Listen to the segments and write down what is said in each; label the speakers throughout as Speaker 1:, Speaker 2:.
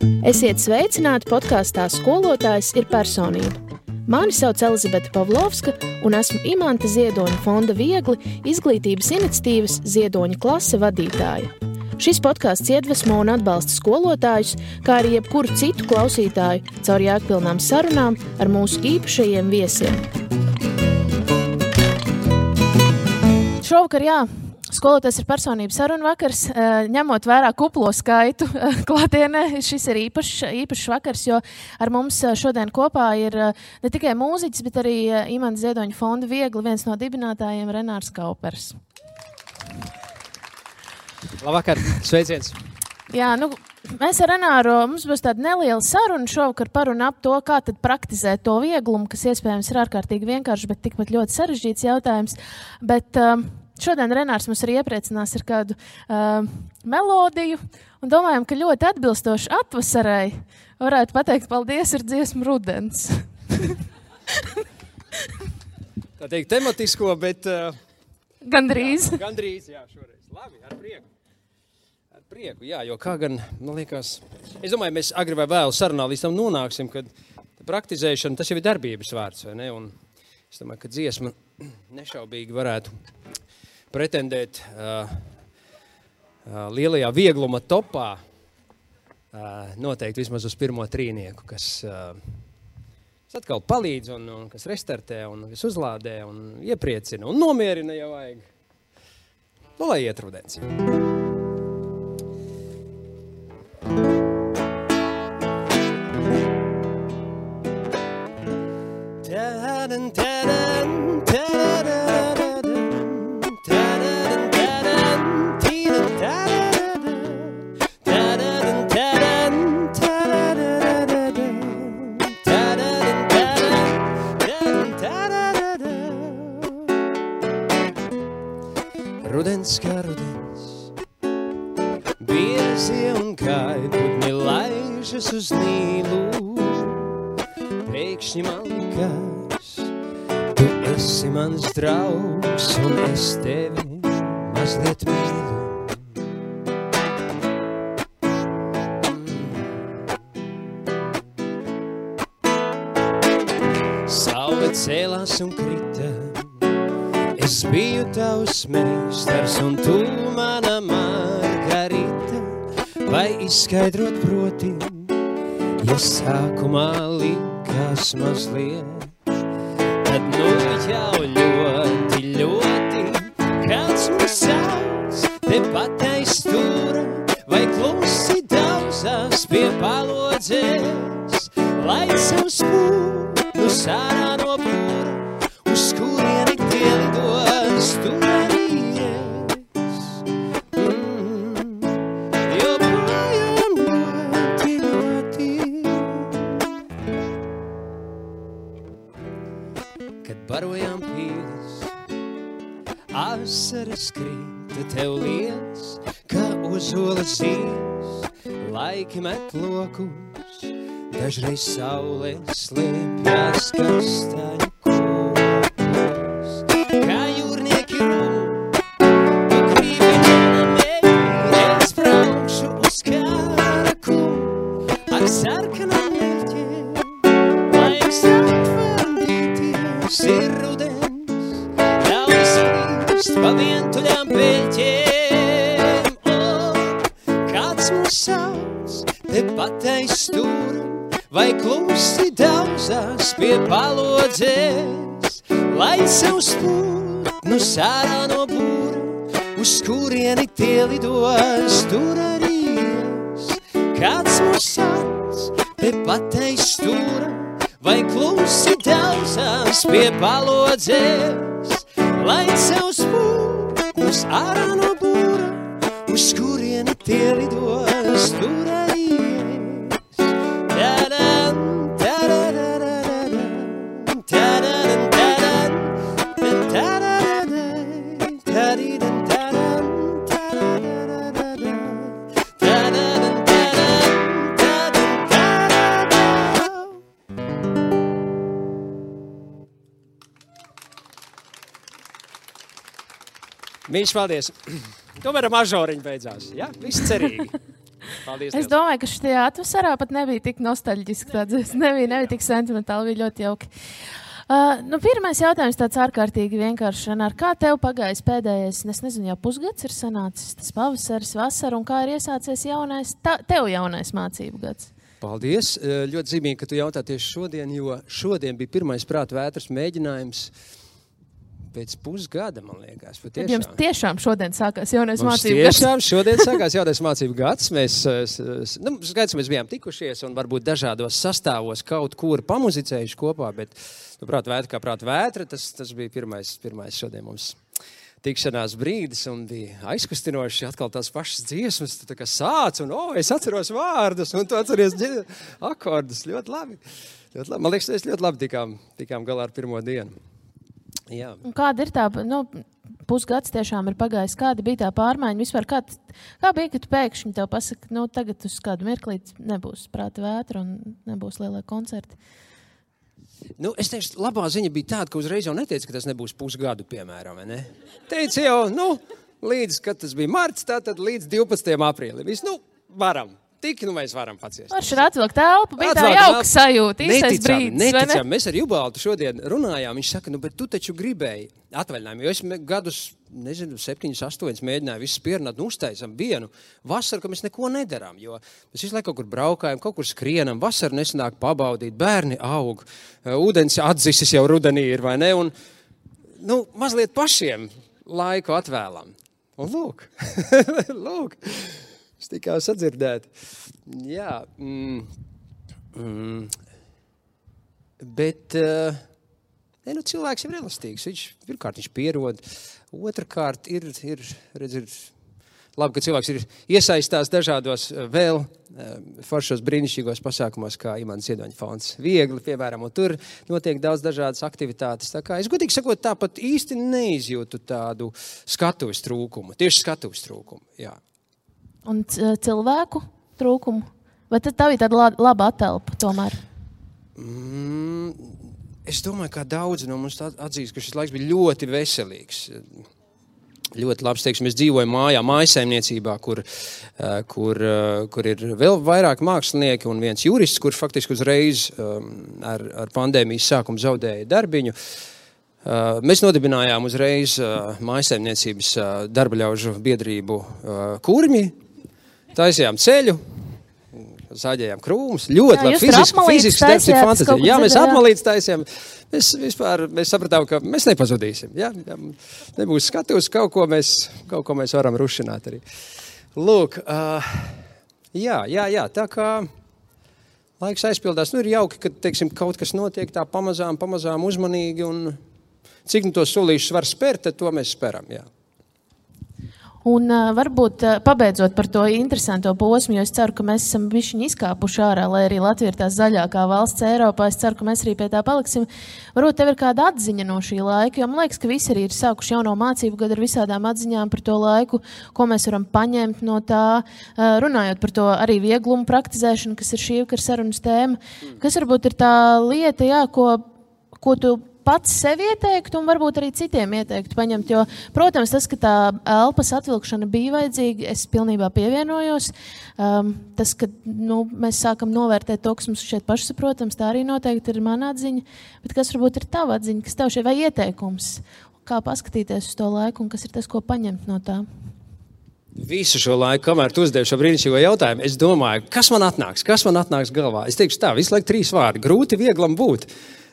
Speaker 1: Esiet sveicināti podkāstā Skolotājs ir personība. Mani sauc Elizabete Pavlovska un esmu Imanta Ziedoņa fonda Viegli izglītības iniciatīvas Ziedoņa klase vadītāja. Šis podkāsts iedvesmo un atbalsta skolotājus, kā arī jebkuru citu klausītāju caur jēgpilnām sarunām ar mūsu īpašajiem viesiem. Šovakar, Skolotājs ir personība sarunu vakars, ņemot vērā kuplo skaitu klātienē. Šis ir īpašs vakars, jo ar mums šodien kopā ir ne tikai mūziķis, bet arī Imanta Ziedoņa fonda Viegli, viens no dibinātājiem Renārs Kaupers.
Speaker 2: Labvakar, sveiciens!
Speaker 1: Jā, mēs ar Renāru, mums būs tāda neliela saruna šovakar par un ap to, kā tad praktizēt to vieglumu, kas iespējams ir ārkārtīgi vienkārši, bet tikpat ļoti sarežģīts jautājums. Bet šodien Renārs mums arī iepriecinās ar kādu melodiju un domājam, ka ļoti atbilstoši atvasarai varētu pateikt paldies ar dziesmu Rudens.
Speaker 2: Tā teikt tematisko, bet...
Speaker 1: Gandrīz.
Speaker 2: Gandrīz, šoreiz. Labi, ar prieku. Ar prieku, jo kā gan, man liekas... Es domāju, mēs agri vai vēl sarunā līdz tam nonāksim, kad praktizēšana, tas jau ir darbības vārds, vai ne? Un es domāju, ka dziesma nešaubīgi varētu pretendēt lielajā viegluma topā noteikti vismaz uz pirmo trīnieku, kas atkal palīdz un kas restartē un kas uzlādē un iepriecina un nomierina, ja vajag. Lai iet rudens. Rudens kā rudens, biezie un kaitputni laižas uz Nīlu. Pēkšņi man likās, tu esi mans draugs un es tevi mazliet mīlu. Saule cēlās un krita, es biju tavs meistars un tu mana Margarita, vai izskaidrot proti, ja sākumā likās mazliet, tad jau ļoti, ļoti kāds mums sauc, tepat aiz stūra, vai klusi daudzās pie palodzes, lai savu spūnu sārā no būra, uz kurieni tie lidos, tu arī es. Joprojām ļoti, ļoti. Kad barojām pīles, asaras krita tev liec, kā uz olas zies, laiki met lokus, dažreiz saule slēpjas kastaņu. Sarkanām mērķiem, laiks atvandīties ir rudens, ļauj skrist pa vientuļām peļķiem. Kāds mūs sauc, tepat aiz stūra, vai klusi daudzās pie palodzes, lai savu spūtnu sārā no būra, uz kurieni tie lidos, tur arī es. Kāds mūs sauc, tepat aiz stūra, vai klusi daudzās pie palodzes, lai savu spūtnus ārā no būra, uz kurieni tie lidos, tur arī es. Tadam, tadadadadam, tadadam, tadam, tadadadam, tadidam, tadam, tadadadadam, tadadam.
Speaker 3: Mīļš, paldies. Tomēr ar mažoriņu beidzās. Ja? Viss cerīgi.
Speaker 2: Paldies.
Speaker 1: Es domāju, ka šajā atvasarā pat nebija tik nostalģiski. Nebija tik sentimentāli, bija ļoti jauki. Pirmais jautājums tāds ārkārtīgi vienkārši. Kā tev pagājis pēdējais, es nezinu, jau pusgads ir sanācis, tas pavasaris, vasara, un kā ir iesācies tev jaunais mācību gads?
Speaker 2: Paldies. Ļoti zīmīgi, ka tu jautā tieši šodien, jo šodien bija pirmais prāta vētras mēģinājums pēc pusgada, man liekas.
Speaker 1: Tad jums tiešām šodien sākās jaunais mācību gads?
Speaker 2: Tiešām šodien sākās jaunais mācību gads. Skaidrs, mēs bijām tikušies un varbūt dažādos sastāvos kaut kur pamuzicējuši kopā, bet prāta vētra kā prāta vētra, tas bija pirmais šodien mums tikšanās brīdis un bija aizkustinoši atkal tās pašas dziesmas. Tu tā kā sāc un es atceros vārdus un tu atceries akordus. Ļoti labi. Man liekas, mēs ļoti labi tikām galā ar pirmo dienu. Jā.
Speaker 1: Un kāda ir tā, pusgads tiešām ir pagājis, kāda bija tā pārmaiņa vispār, kā bija, ka tu pēkšņi tev pasaka, tagad uz kādu mirklīt nebūs prāta vētra un nebūs lielie koncerti?
Speaker 2: Es teikšu, labā ziņa bija tāda, ka uzreiz jau neteica, ka tas nebūs pusgadu, piemēram, ne? Teica jau, līdz, kad tas bija marts, tātad līdz 12. aprīlim. Varam. Tik, mēs varam paciest.
Speaker 1: Varš ir atvilkt telpu, bija tā jauka sajūta, īstais brīdis,
Speaker 2: neticam. Mēs ar Jubaltu šodien runājām, viņš saka, bet tu taču gribēji atvaļinājumu, jo es gadus, 7, 8 mēģināju visu pierunāt, uztaisam vienu vasaru, ka mēs neko nedarām, jo mēs visu laiku kaut kur braukājam, kaut kur skrienam, vasaru nesanāk pabaudīt, bērni aug, ūdens atdzisis jau rudenī ir, vai ne, un, mazliet pašiem laiku atvēlam. Un lūk, es tikā sadzirdēt. Jā. Bet cilvēks ir elastīgs. Pirmkārt, viņš pierod. Otrakārt, ir labi, ka cilvēks ir iesaistās dažādos vēl foršos brīnišķīgos pasākumos, kā Imants Ziedoņa fonds. Viegli, piemēram, un tur notiek daudz dažādas aktivitātes. Tā kā es godīgi sakot, tāpat īsti neizjūtu tādu skatuves trūkumu. Tieši skatuves trūkumu, jā.
Speaker 1: Un cilvēku trūkumu? Vai tad tā bija tāda laba atelpa tomēr?
Speaker 2: Es domāju, kā daudzi no mums atzīst, ka šis laiks bija ļoti veselīgs. Ļoti labs, teiksim, es dzīvoju mājasaimniecībā, kur ir vēl vairāk mākslinieki un viens jurists, kurš faktiski uzreiz ar pandēmijas sākumu zaudēja darbiņu. Mēs nodibinājām uzreiz mājasaimniecības darbaļaužu biedrību Kurmi, taisījām ceļu, zāģējām krūmus, ļoti labi fizisks darbs ir fantastika. Jā, mēs apmalītes taisījām. Mēs sapratām, ka mēs nepazudīsim. Jā, nebūs skatūs, kaut ko mēs varam rušināt arī. Lūk, jā, tā kā laiks aizpildās. Ir jauki, ka, teiksim, kaut kas notiek tā pamazām uzmanīgi, un cik tos solīšus var spērt, tad to mēs speram, jā.
Speaker 1: Un varbūt pabeidzot par to interesanto posmu, jo es ceru, ka mēs esam bišķiņi izkāpuši ārā, lai arī Latvija ir tā zaļākā valsts Eiropā. Es ceru, ka mēs arī pie tā paliksim. Varbūt tev ir kāda atziņa no šī laika, jo man liekas, ka visi arī ir sākuši jauno mācību gadu ar visādām atziņām par to laiku, ko mēs varam paņemt no tā, runājot par to arī vieglumu praktizēšanu, kas ir šī vakara sarunas tēma. Kas varbūt ir tā lieta, jā, ko tu pats sev ieteiktu un varbūt arī citiem ieteiktu paņemt, jo, protams, tas, ka tā elpas atvilkšana bija vajadzīga, es pilnībā pievienojos. Tas, ka mēs sākam novērtēt to, kas mums šeit pašsaprotams, tā arī noteikti ir mana atziņa, bet kas varbūt ir tava atziņa, kas tev šeit vai ieteikums, kā paskatīties uz to laiku un kas ir tas, ko paņemt no tā?
Speaker 2: Visu šo laiku, kamēr tu uzdevi šo brīnišķīgo jautājumu, es domāju, kas man atnāks galvā? Es teikšu tā, visu laiku 3 vārdi, grūti vieglam būt.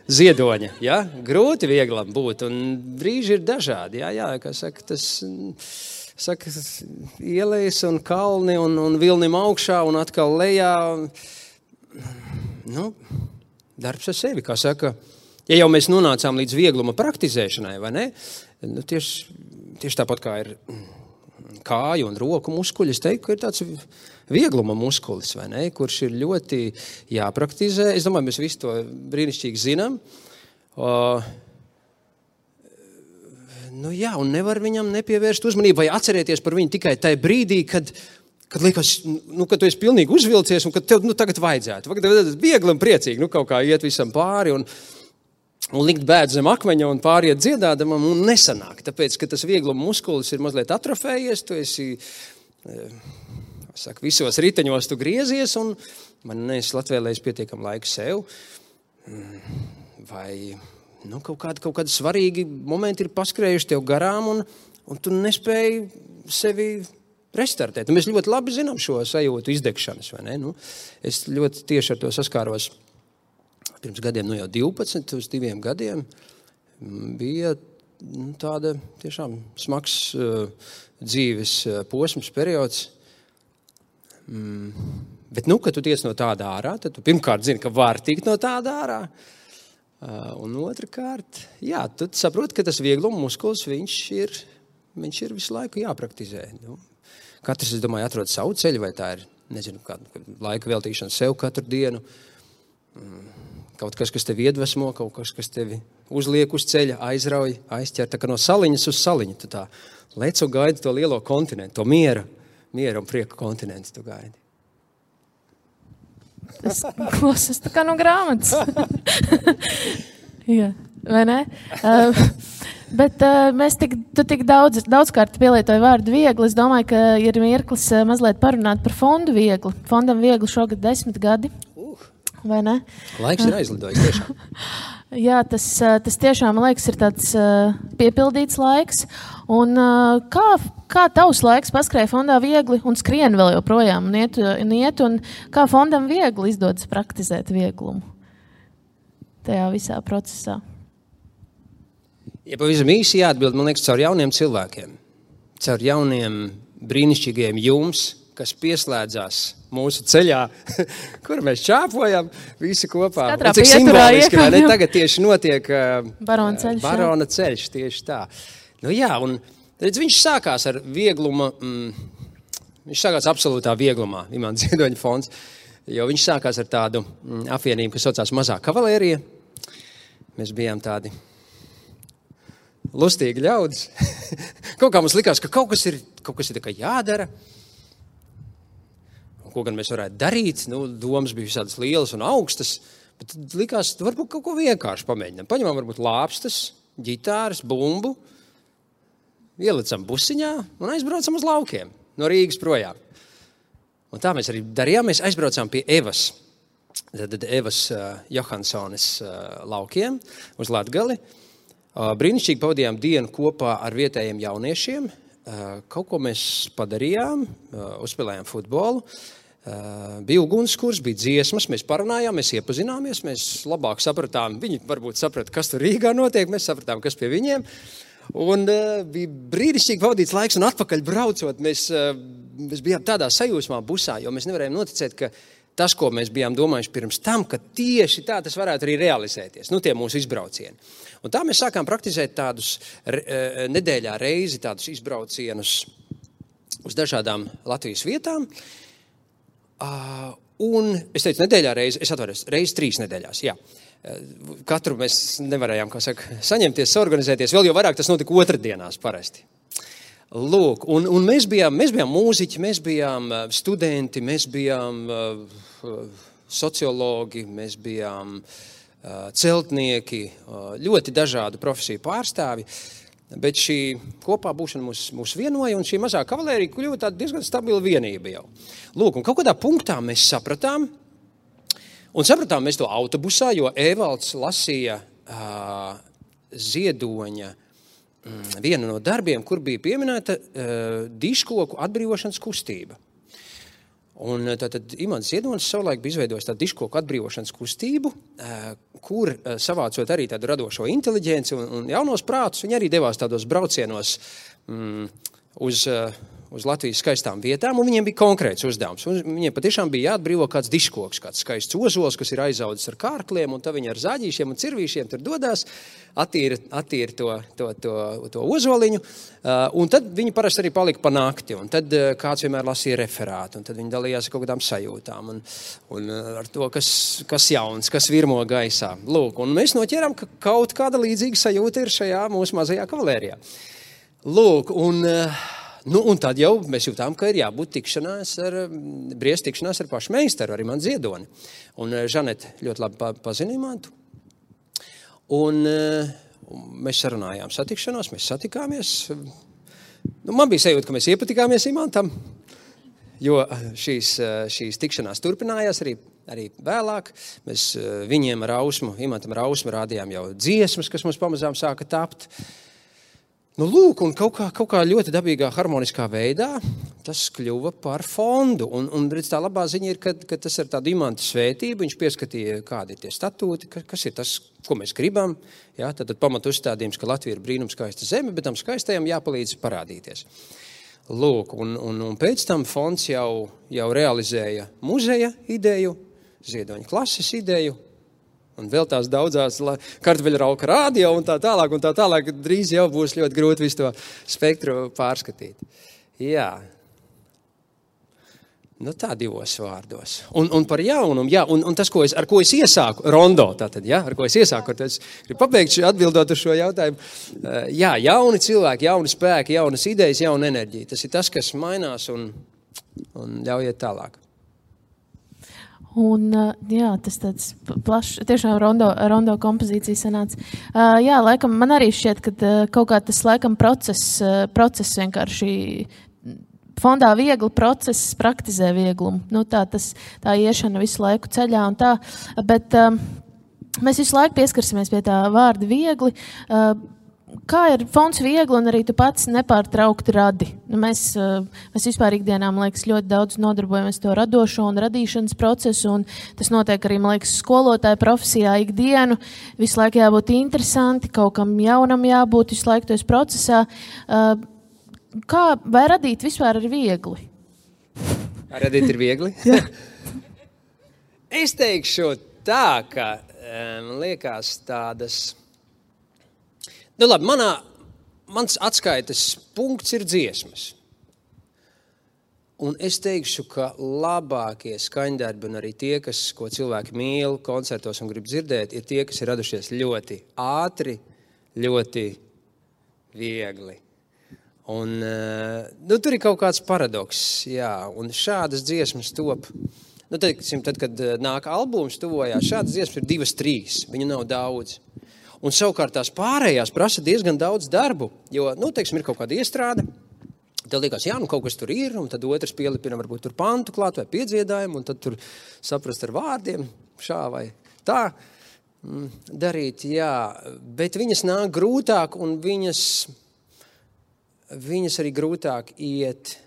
Speaker 2: Ziedoņa, jā, grūti vieglam būt, un brīži ir dažādi, jā, kā saka, ielejas un kalni un vilnim augšā un atkal lejā, darbs ar sevi, kā saka, ja jau mēs nonācām līdz viegluma praktizēšanai, vai ne, tieši tāpat kā ir kāju un roku muskuļi, es teiktu, ka ir tāds viegluma muskulis, vai ne, kurš ir ļoti jāpraktizē. Es domāju, mēs visi to brīnišķīgi zinām. Un nevar viņam nepievērst uzmanību vai atcerēties par viņu tikai tajā brīdī, kad liekas, ka tu esi pilnīgi uzvilcies un ka tev tagad vajadzētu. Viegli un priecīgi, kaut kā iet visam pāri un likt bēdu zem akmeņa un pāriet dziedādamam un nesanāk. Tāpēc, ka tas viegluma muskulis ir mazliet atrofējies, tu esi saka, visos riteņos tu griezies un man neesi atvēlējis pietiekam laiku sev. Vai kaut kādi svarīgi momenti ir paskrējuši tev garām un tu nespēji sevi restartēt. Mēs ļoti labi zinām šo sajūtu izdegšanas, vai ne? Es ļoti tieši ar to saskāros pirms gadiem, jau 12 uz 2 gadiem. Bija tāda tiešām smags dzīves posms, periods. Bet, kad tu tiec no tāda ārā, tad tu pirmkārt zini, ka var tikt no tāda ārā. Un otrkārt, tu saproti, ka tas viegluma muskulis, viņš ir visu laiku jāpraktizē. Katrs, es domāju, atrod savu ceļu, vai tā ir, nezinu, kāda laika veltīšana sev katru dienu. Kaut kas tevi iedvesmo, kaut kas tevi uzliek uz ceļa, aizrauj, aizķer, tā kā no saliņas uz saliņu. Tu tā lec un gaidi to lielo kontinentu, to miera un prieka kontinentu tu gaidi.
Speaker 1: Es klausos tā kā no grāmatas. Jā, vai ne? Bet tu tik daudzkārt pielietoji vārdu viegli. Es domāju, ka ir mirklis mazliet parunāt par fondu viegli. Fondam viegli šogad 10 gadi. Vai ne?
Speaker 2: Laiks ir aizlidojis tiešām.
Speaker 1: Jā, tas tiešām, man liekas, ir tāds piepildīts laiks. Un kā tavs laiks paskrēja fondā viegli un skrien vēl joprojām un iet, un kā fondam viegli izdodas praktizēt vieglumu tajā visā procesā?
Speaker 2: Ja pavisam īsi jāatbild, man liekas, caur jauniem cilvēkiem, caur jauniem brīnišķīgiem jums, kas pieslēdzās mūsu ceļā, kur mēs čāpojam visi kopā.
Speaker 1: Katrā
Speaker 2: cik simboliski, vai ne? Tagad tieši notiek
Speaker 1: Barona
Speaker 2: ceļš, tieši tā. Un redz, viņš sākās ar viegluma, viņš sākās absolūtā vieglumā, Imants Ziedoņa fonds, jo viņš sākās ar tādu apvienību, kas saucās Mazā kavalērija. Mēs bijām tādi lustīgi ļaudis. Kaut kā mums likās, ka kaut kas ir tā kā jādara. Ko gan mēs varētu darīt, domas bija visādas lielas un augstas, bet likās, varbūt kaut ko vienkārši pamēģinām. Paņemām varbūt lāpstas, ģitāras, bumbu, ielicam busiņā un aizbraucam uz laukiem, no Rīgas projām. Un tā mēs arī darījām, mēs aizbraucām pie Evas Johansones laukiem uz Latgali. Brīnišķīgi pavadījām dienu kopā ar vietējiem jauniešiem, kaut ko mēs padarījām, uzspēlējām futbolu. Bija ugunskurs, bija dziesmas, mēs parunājām, mēs iepazināmies, mēs labāk sapratām, viņi varbūt saprata, kas tur Rīgā notiek, mēs sapratām, kas pie viņiem. Un bija brīnišķīgi pavadīts laiks, un atpakaļ braucot, mēs bijām tādā sajūsmā busā, jo mēs nevarējām noticēt, ka tas, ko mēs bijām domājuši pirms tam, ka tieši tā tas varētu arī realizēties, tie mūsu izbraucieni. Un tā mēs sākām praktizēt tādus nedēļā reizi, tādus izbraucienus uz dažādām Latvijas vietām. Un es teicu nedēļā reizi, es atvainojos, reizi 3 nedēļās, jā. Katru mēs nevarējām, saņemties, organizēties, vēl jau vairāk tas notika otrdienās parasti. Lūk, un mēs bijām mūziķi, mēs bijām studenti, mēs bijām sociologi, mēs bijām celtnieki, ļoti dažādu profesiju pārstāvi, bet šī kopā būšana mūs vienoja, un šī mazā kavalērija kļuva tāda diezgan stabila vienība jau. Lūk, un kaut kādā punktā mēs sapratām mēs to autobusā, jo Evalds lasīja Ziedoņa vienu no darbiem, kur bija pieminēta diškoku atbrīvošanas kustība. Un tātad Imants Ziedonis savulaik bija izveidojis tādu diškoku atbrīvošanas kustību, kur savācot arī tādu radošo inteliģenci un jaunos prātus, viņi arī devās tādos braucienos uz Latvijas skaistām vietām, un viņiem bija konkrēts uzdevums. Un viņiem patiešām bija jāatbrīvo kāds diškoks, kāds skaists ozols, kas ir aizaudzis ar kārkliem, un tad viņi ar zāģīšiem un cirvīšiem tur dodās, attīra to ozoliņu, un tad viņi parasti arī palika pa nakti, un tad kāds vienmēr lasīja referātu, un tad viņi dalījās ar kaut kādām sajūtām, un ar to, kas jauns, kas virmo gaisā. Lūk, un mēs noķērām, ka kaut kāda līdzīga sajūta ir šajā mūsu mazajā kavalērijā. Lūk, un tad jau mēs jūtām, ka ir jābūt tikšanās ar pašu meistaru, ar Imantu Ziedoni. Un Žanete ļoti labi pazina Imantu. Un mēs sarunājām satikšanos, mēs satikāmies. Man bija sajūta, ka mēs iepatikāmies Imantam. jo šīs tikšanās turpinājās arī vēlāk. Mēs viņiem Imantam Rausmu rādījām jau dziesmas, kas mums pamazām sāka tapt. Nu, lūk, un kaut kā ļoti dabīgā, harmoniskā veidā tas kļuva par fondu. Un redz, tā labā ziņa ir, ka tas ir tāda Imanta svētība. Viņš pieskatīja, kādi ir tie statūti, kas ir tas, ko mēs gribam. Ja, tad pamatu uzstādījums, ka Latvija ir brīnumskaista zeme, bet tam skaistajam jāpalīdz parādīties. Lūk, un pēc tam fonds jau realizēja muzeja ideju, Ziedoņa klases ideju, un vēl tās daudzās kartupeļrauka radio un tā tālāk, drīz jau būs ļoti grūti visu to spektru pārskatīt. Jā. Nu tā divos vārdos. Un par jaunumu, jā, un tas, ar ko es iesāku, rondo tātad, jā, ar ko es iesāku, tad es gribu pabeigt atbildot uz šo jautājumu. Jā, jauni cilvēki, jauni spēki, jaunas idejas, jauna enerģija. Tas ir tas, kas mainās un ļaujiet tālāk.
Speaker 1: Un, jā, tas tāds plašs, tiešām rondo kompozīcija sanāca. Jā, laikam, man arī šķiet, ka kaut kā tas, laikam, process vienkārši fondā viegli process praktizē vieglumu. Nu, tā iešana visu laiku ceļā un tā, bet mēs visu laiku pieskarsimies pie tā vārda viegli. Kā ir fonds viegli un arī tu pats nepārtraukti radi? Nu, mēs vispār ikdienā, man liekas, ļoti daudz nodarbojamies to radošo un radīšanas procesu, un tas notiek arī, man liekas, skolotāja profesijā ikdienu. Visu laiku jābūt interesanti, kaut kam jaunam jābūt, visu laiku tojas procesā. Vai radīt vispār ir viegli?
Speaker 2: Radīt ir viegli? Es teikšu tā, ka man liekas tādas... Nu labi, mans atskaites punkts ir dziesmas. Un es teikšu, ka labākie skaņdarbi un arī tie, ko cilvēki mīl koncertos un grib dzirdēt, ir tie, kas ir radušies ļoti ātri, ļoti viegli. Un tur ir kaut kāds paradoks, jā, un šādas dziesmas top. Nu, tad, kad nāk albums tuvojās, šādas dziesmas ir 2-3, viņu nav daudz. Un savukārt tās pārējās prasa diezgan daudz darbu, jo, ir kaut kāda iestrāde, tev liekas, jā, kaut kas tur ir, un tad otrs pielipina varbūt tur pantu klāt vai piedziedājumu, un tad tur saprast ar vārdiem šā vai tā darīt, jā, bet viņas nāk grūtāk, un viņas arī grūtāk iet.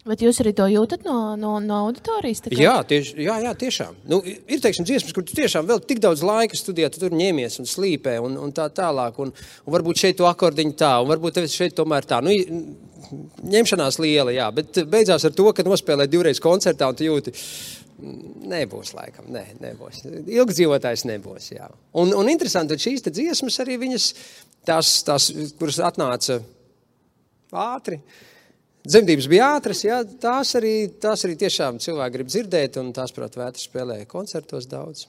Speaker 1: Bet jūs arī to jūtat no auditorijas?
Speaker 2: Jā, tiešām. Nu, ir, dziesmas, kur tu tiešām vēl tik daudz laika studijā, tu tur ņemies un slīpē un tā tālāk, un varbūt šeit tu akordiņu tā, un varbūt tev šeit tomēr tā. Nu, ņemšanās liela, jā, bet beidzās ar to, ka nospēlē 2 reizes koncertā, un tu jūti, nebūs laikam, nebūs. Ilgdzīvotājs nebūs, jā. Un interesanti, šīs te dziesmas arī viņas, tās kuras atnāca ātri, dzemdības bija ātras, jā, tās arī tiešām cilvēki grib dzirdēt, un tās, prāt, vētri spēlēja koncertos daudz.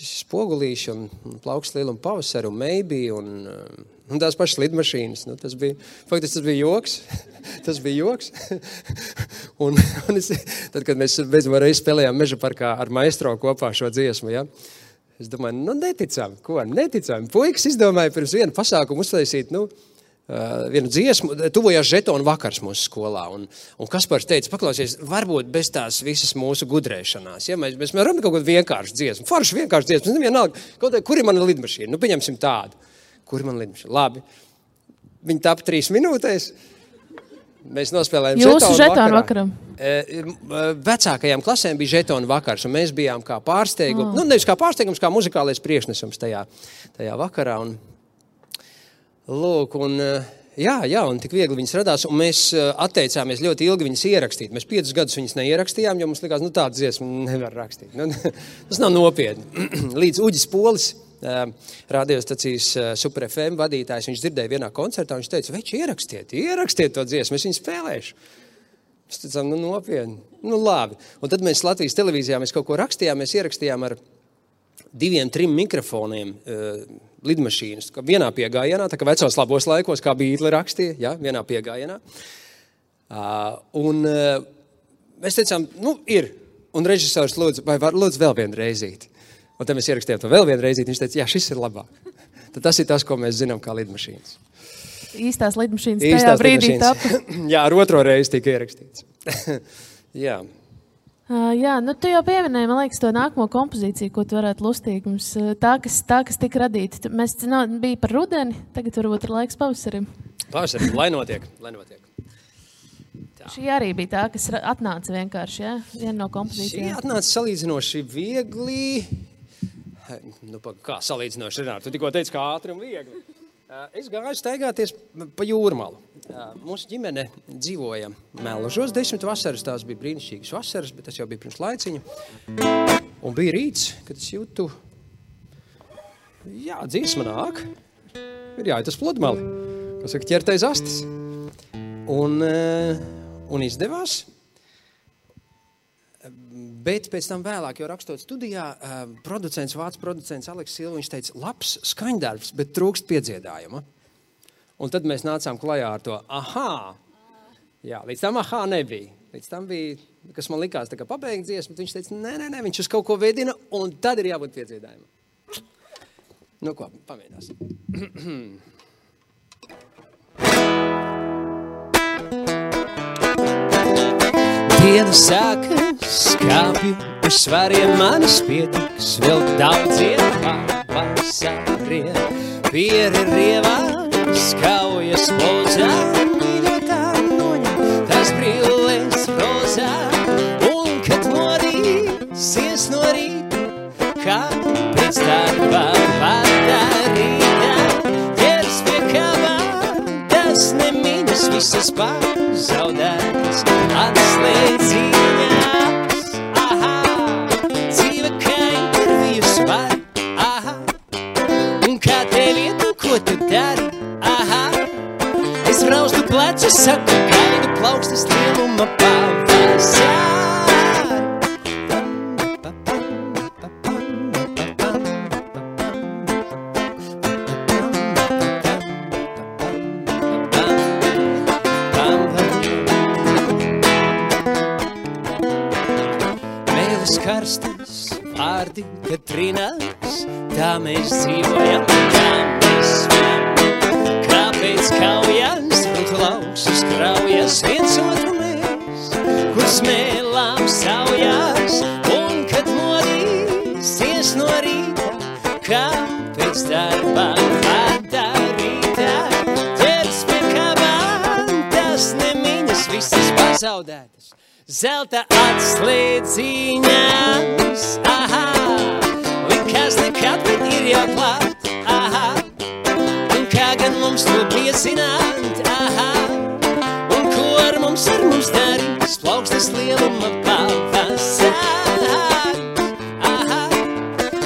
Speaker 2: Spogulīši un plaukst lieluma pavasari un maybe un tās pašas lidmašīnas. Nu, tas bija joks. Tas bija joks. un tad, kad mēs beidzamā reizi spēlējām Meža parkā ar maestro kopā šo dziesmu, ja, es domāju, neticām. Puikas izdomāja pirms vienu pasākumu uztaisīt, vienu dziesmu, tuvojās žetonu vakars mūsu skolā, un Kaspars teica, paklausies, varbūt bez tās visas mūsu gudrēšanās, ja mēs varam kaut kādu vienkāršu dziesmu, foršu vienkāršu dziesmu, nevienalga, kur ir mana lidmašīna, pieņemsim tādu, kur ir mana lidmašīna, labi, viņi tapa 3 minūtēs, mēs nospēlējām žetonu vakaram. Vecākajām klasēm bija žetonu vakars, un mēs bijām kā pārsteigums, nevis kā pārsteigums, kā muzikālais priekšnesums tajā vakarā, un lūk, un un tik viegli viņas radās, un mēs atteicāmies ļoti ilgi viņas ierakstīt. Mēs 5 gadus viņas neierakstījām, jo mums likās, tādu dziesmu nevar rakstīt. Tas nav nopietni. Līdz Uģis Polis, radiostacijas Super FM vadītājs, viņš dzirdēja vienā koncertā, viņš teica, veči, ierakstiet to dziesmu, es viņu spēlēšu. Mēs teicām, nopietni, labi. Un tad mēs Latvijas televīzijā kaut ko rakstījām, mēs ierakstījām ar 2-3 mikrofoniem lidmašīnas, vienā piegājienā, tā kā vecos labos laikos, kā Beatli rakstīja, ja, vienā piegājienā. Un mēs teicām, ir. Un režisors lūdzu, vai var lūdzu vēl vienu reizīti. Un tad mēs ierakstījām to vēl vienu reizīti, viņš teica, jā, šis ir labāk. Tad tas ir tas, ko mēs zinām kā lidmašīnas.
Speaker 1: īstās lidmašīnas tajā brīdī tapa.
Speaker 2: Jā, ar otro reizi tika ierakstīts. Jā.
Speaker 1: Jā, nu tu jau pieminēji, man liekas, to nākamo kompozīciju, ko tu varētu lustīt mums. Tā, kas tika radīta. Mēs bija par rudeni, tagad varbūt ir laiks pavasarim.
Speaker 2: Pavasarim, lai notiek.
Speaker 1: Šī arī bija tā, kas atnāca vienkārši, jā? Viena no kompozīcijām.
Speaker 2: Šī atnāca salīdzinoši viegli. Nu, kā salīdzinoši, Renāri? Tu tikko teici, kā ātri un viegli. Es gāju staigāties pa Jūrmalu. Mūsu ģimene dzīvoja Melžos 10 vasaras, tās bija brīnišķīgas vasaras, bet tas jau bija pirms laiciņa. Un bija rīts, kad es jūtu, jā, dziesma nāk, ir jāiet uz pludmali, ko saka ķertais astis. Un izdevās. Bet pēc tam vēlāk, jau rakstot studijā, vācu producents Aleks Silva, viņš teica, labs skaņdarbs, bet trūkst piedziedājuma. Un tad mēs nācām klajā ar to ahā. Jā, līdz tam ahā nebija. Līdz tam bija, kas man likās tā kā pabeigt dziesmu, bet viņš teica, nē, viņš uz kaut ko vedina, un tad ir jābūt piedziedājumam. Nu ko, pamēģināsim. Diena sākas, kāpju uz svariem manis pietiks, vēl daudziem pavasariem. Pieri rievās, kaujas plozā, mīļotā noņem tās brilles rozā. Un kad modīsies no rīta, kā pēc darba padarītā, ķers pie kavā, tas nemiņas visas pazaudētas. Atslēdziņās, aha, dzīve kā intervijas var, aha, un kā tev iet, un ko tu dari, aha, es raustu plecu, saku, gaidu plaukstas lieluma pavasar. Karstas vārdi, kad trinās, tā mēs dzīvojam, tā mēs svem. Kāpēc kaujas, un klausas kraujas, viens otru mēs, kur smēlām saujās, un kad modīsies no rīta, kāpēc darbā padarītā, ķers pie kavām, tas nemiņas visas pazaudētas. Zelta atslēdziņās, aha, likās nekad, bet ir jau klāt, aha, un kā gan mums to piezināt, aha, un ko ar mums darīs, plaukstas lieluma pavasar, aha,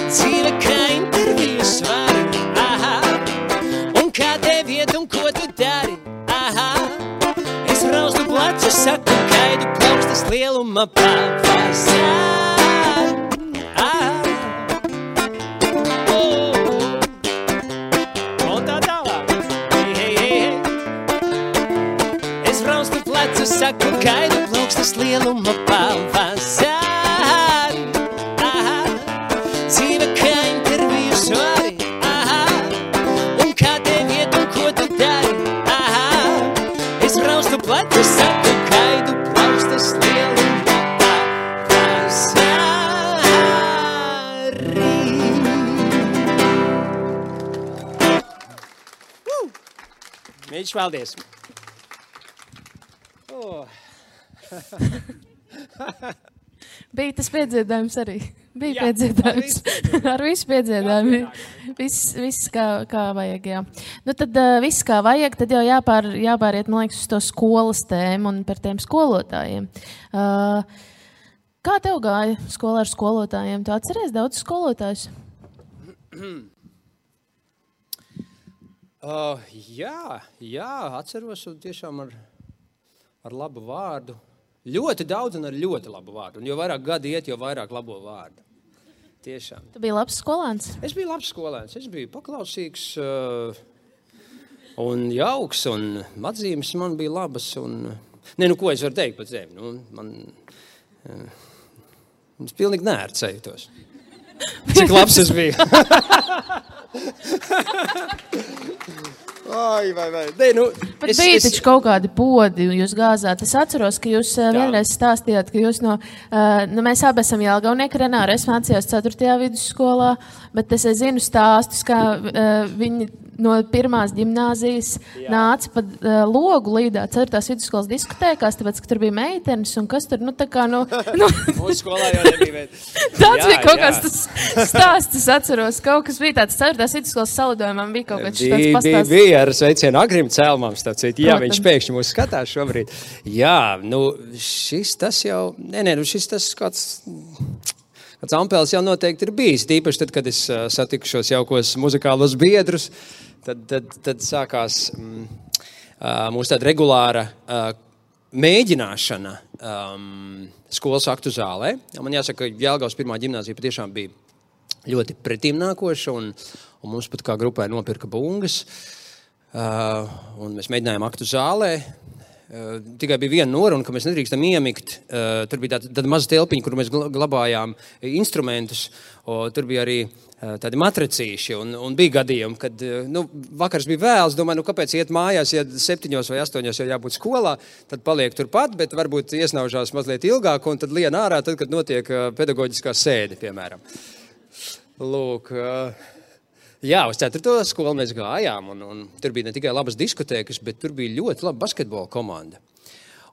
Speaker 2: dzīve kā intervijas var, aha, un kā tev iet un ko tu dari, aha, es raustu placu, saku, gaidu plaukstas lieluma pavasar. Un tā tālāk. Hei. Es raustu plecu, saku, gaidu plaukstas lieluma pavasar. Dzīve kā intervijas vari. Un kā tev iet un ko tu dari. Es raustu plecu, saku, gaidu plaukstas lieluma pavasarī. Mīļš, paldies!
Speaker 1: Bija tas piedziedājums arī. Bija piedziedājums. Ar visu piedziedājumu. Viss kā vajag, jā. Nu tad viss kā vajag, tad jau jāpāriet, man liekas, uz to skolas tēmu un par tiem skolotājiem. Kā tev gāja skolā ar skolotājiem? Tu atceries daudz skolotājus?
Speaker 2: Jā, atceros un tiešām ar labu vārdu. Ļoti daudz un ar ļoti labu vārdu. Un jo vairāk gadi iet, jo vairāk labo vārdu. Tiešām.
Speaker 1: Tu biji labs skolēns?
Speaker 2: Es biju labs skolēns. Es biju paklausīgs un jauks, un atzīmes man bija labas. Un... ko es varu teikt par sevi? Es pilnīgi neērts jūtos. Cik labs es biju. Vai. Nē, nu,
Speaker 1: Bet bija taču kaut kādi podi, jūs gāzāt. Es atceros, ka jūs vienreiz stāstījāt, ka jūs mēs abi esam Jelgavnieki, Renāra, es mācījos 4. vidusskolā, bet es zinu stāstus, kā viņi no pirmās ģimnāzijas nāca pa logu līdā 4. vidusskolas diskotēkās, tāpēc, ka tur bija meitenes, un kas tur,
Speaker 2: Mūsu skolā jau nebija meitenes.
Speaker 1: Tāds bija kaut kāds tas stāsts, es atceros, kaut kas bija tāds 4. vidusskolas salidojumam, bija kaut kāds tāds pastāsts.
Speaker 2: Bija ar sveicienu Agrim Cēlmam, jā, viņš pēkšņi mūs skatās šobrīd. Jā, šis tas kāds ampēls jau noteikti ir bijis, tīpaši tad, kad es satiku šos jaukos muzikālos biedrus, tad sākās mūsu tāda regulāra mēģināšana skolas aktu zālē. Man jāsaka, ka Jelgavas pirmā ģimnāzija patiešām bija ļoti pretīmnākoša, un mums pat kā grupai nopirka bungas, un mēs mēģinājām aktu zālē. Tikai bija viena noruna, ka mēs nedrīkstam iemigt. Tur bija tāda maza telpiņa, kur mēs glabājām instrumentus. Tur bija arī tādi matracīši. Un bija gadījumi, kad vakars bija vēls. Domāju, kāpēc iet mājās, ja 7 vai 8 jau jābūt skolā, tad paliek turpat, bet varbūt iesnaužās mazliet ilgāk un tad lien ārā, tad, kad notiek pedagoģiskā sēde, piemēram. Lūk, jā, uz 4. skolu mēs gājām, un tur bija ne tikai labas diskotēkas, bet tur bija ļoti laba basketbola komanda.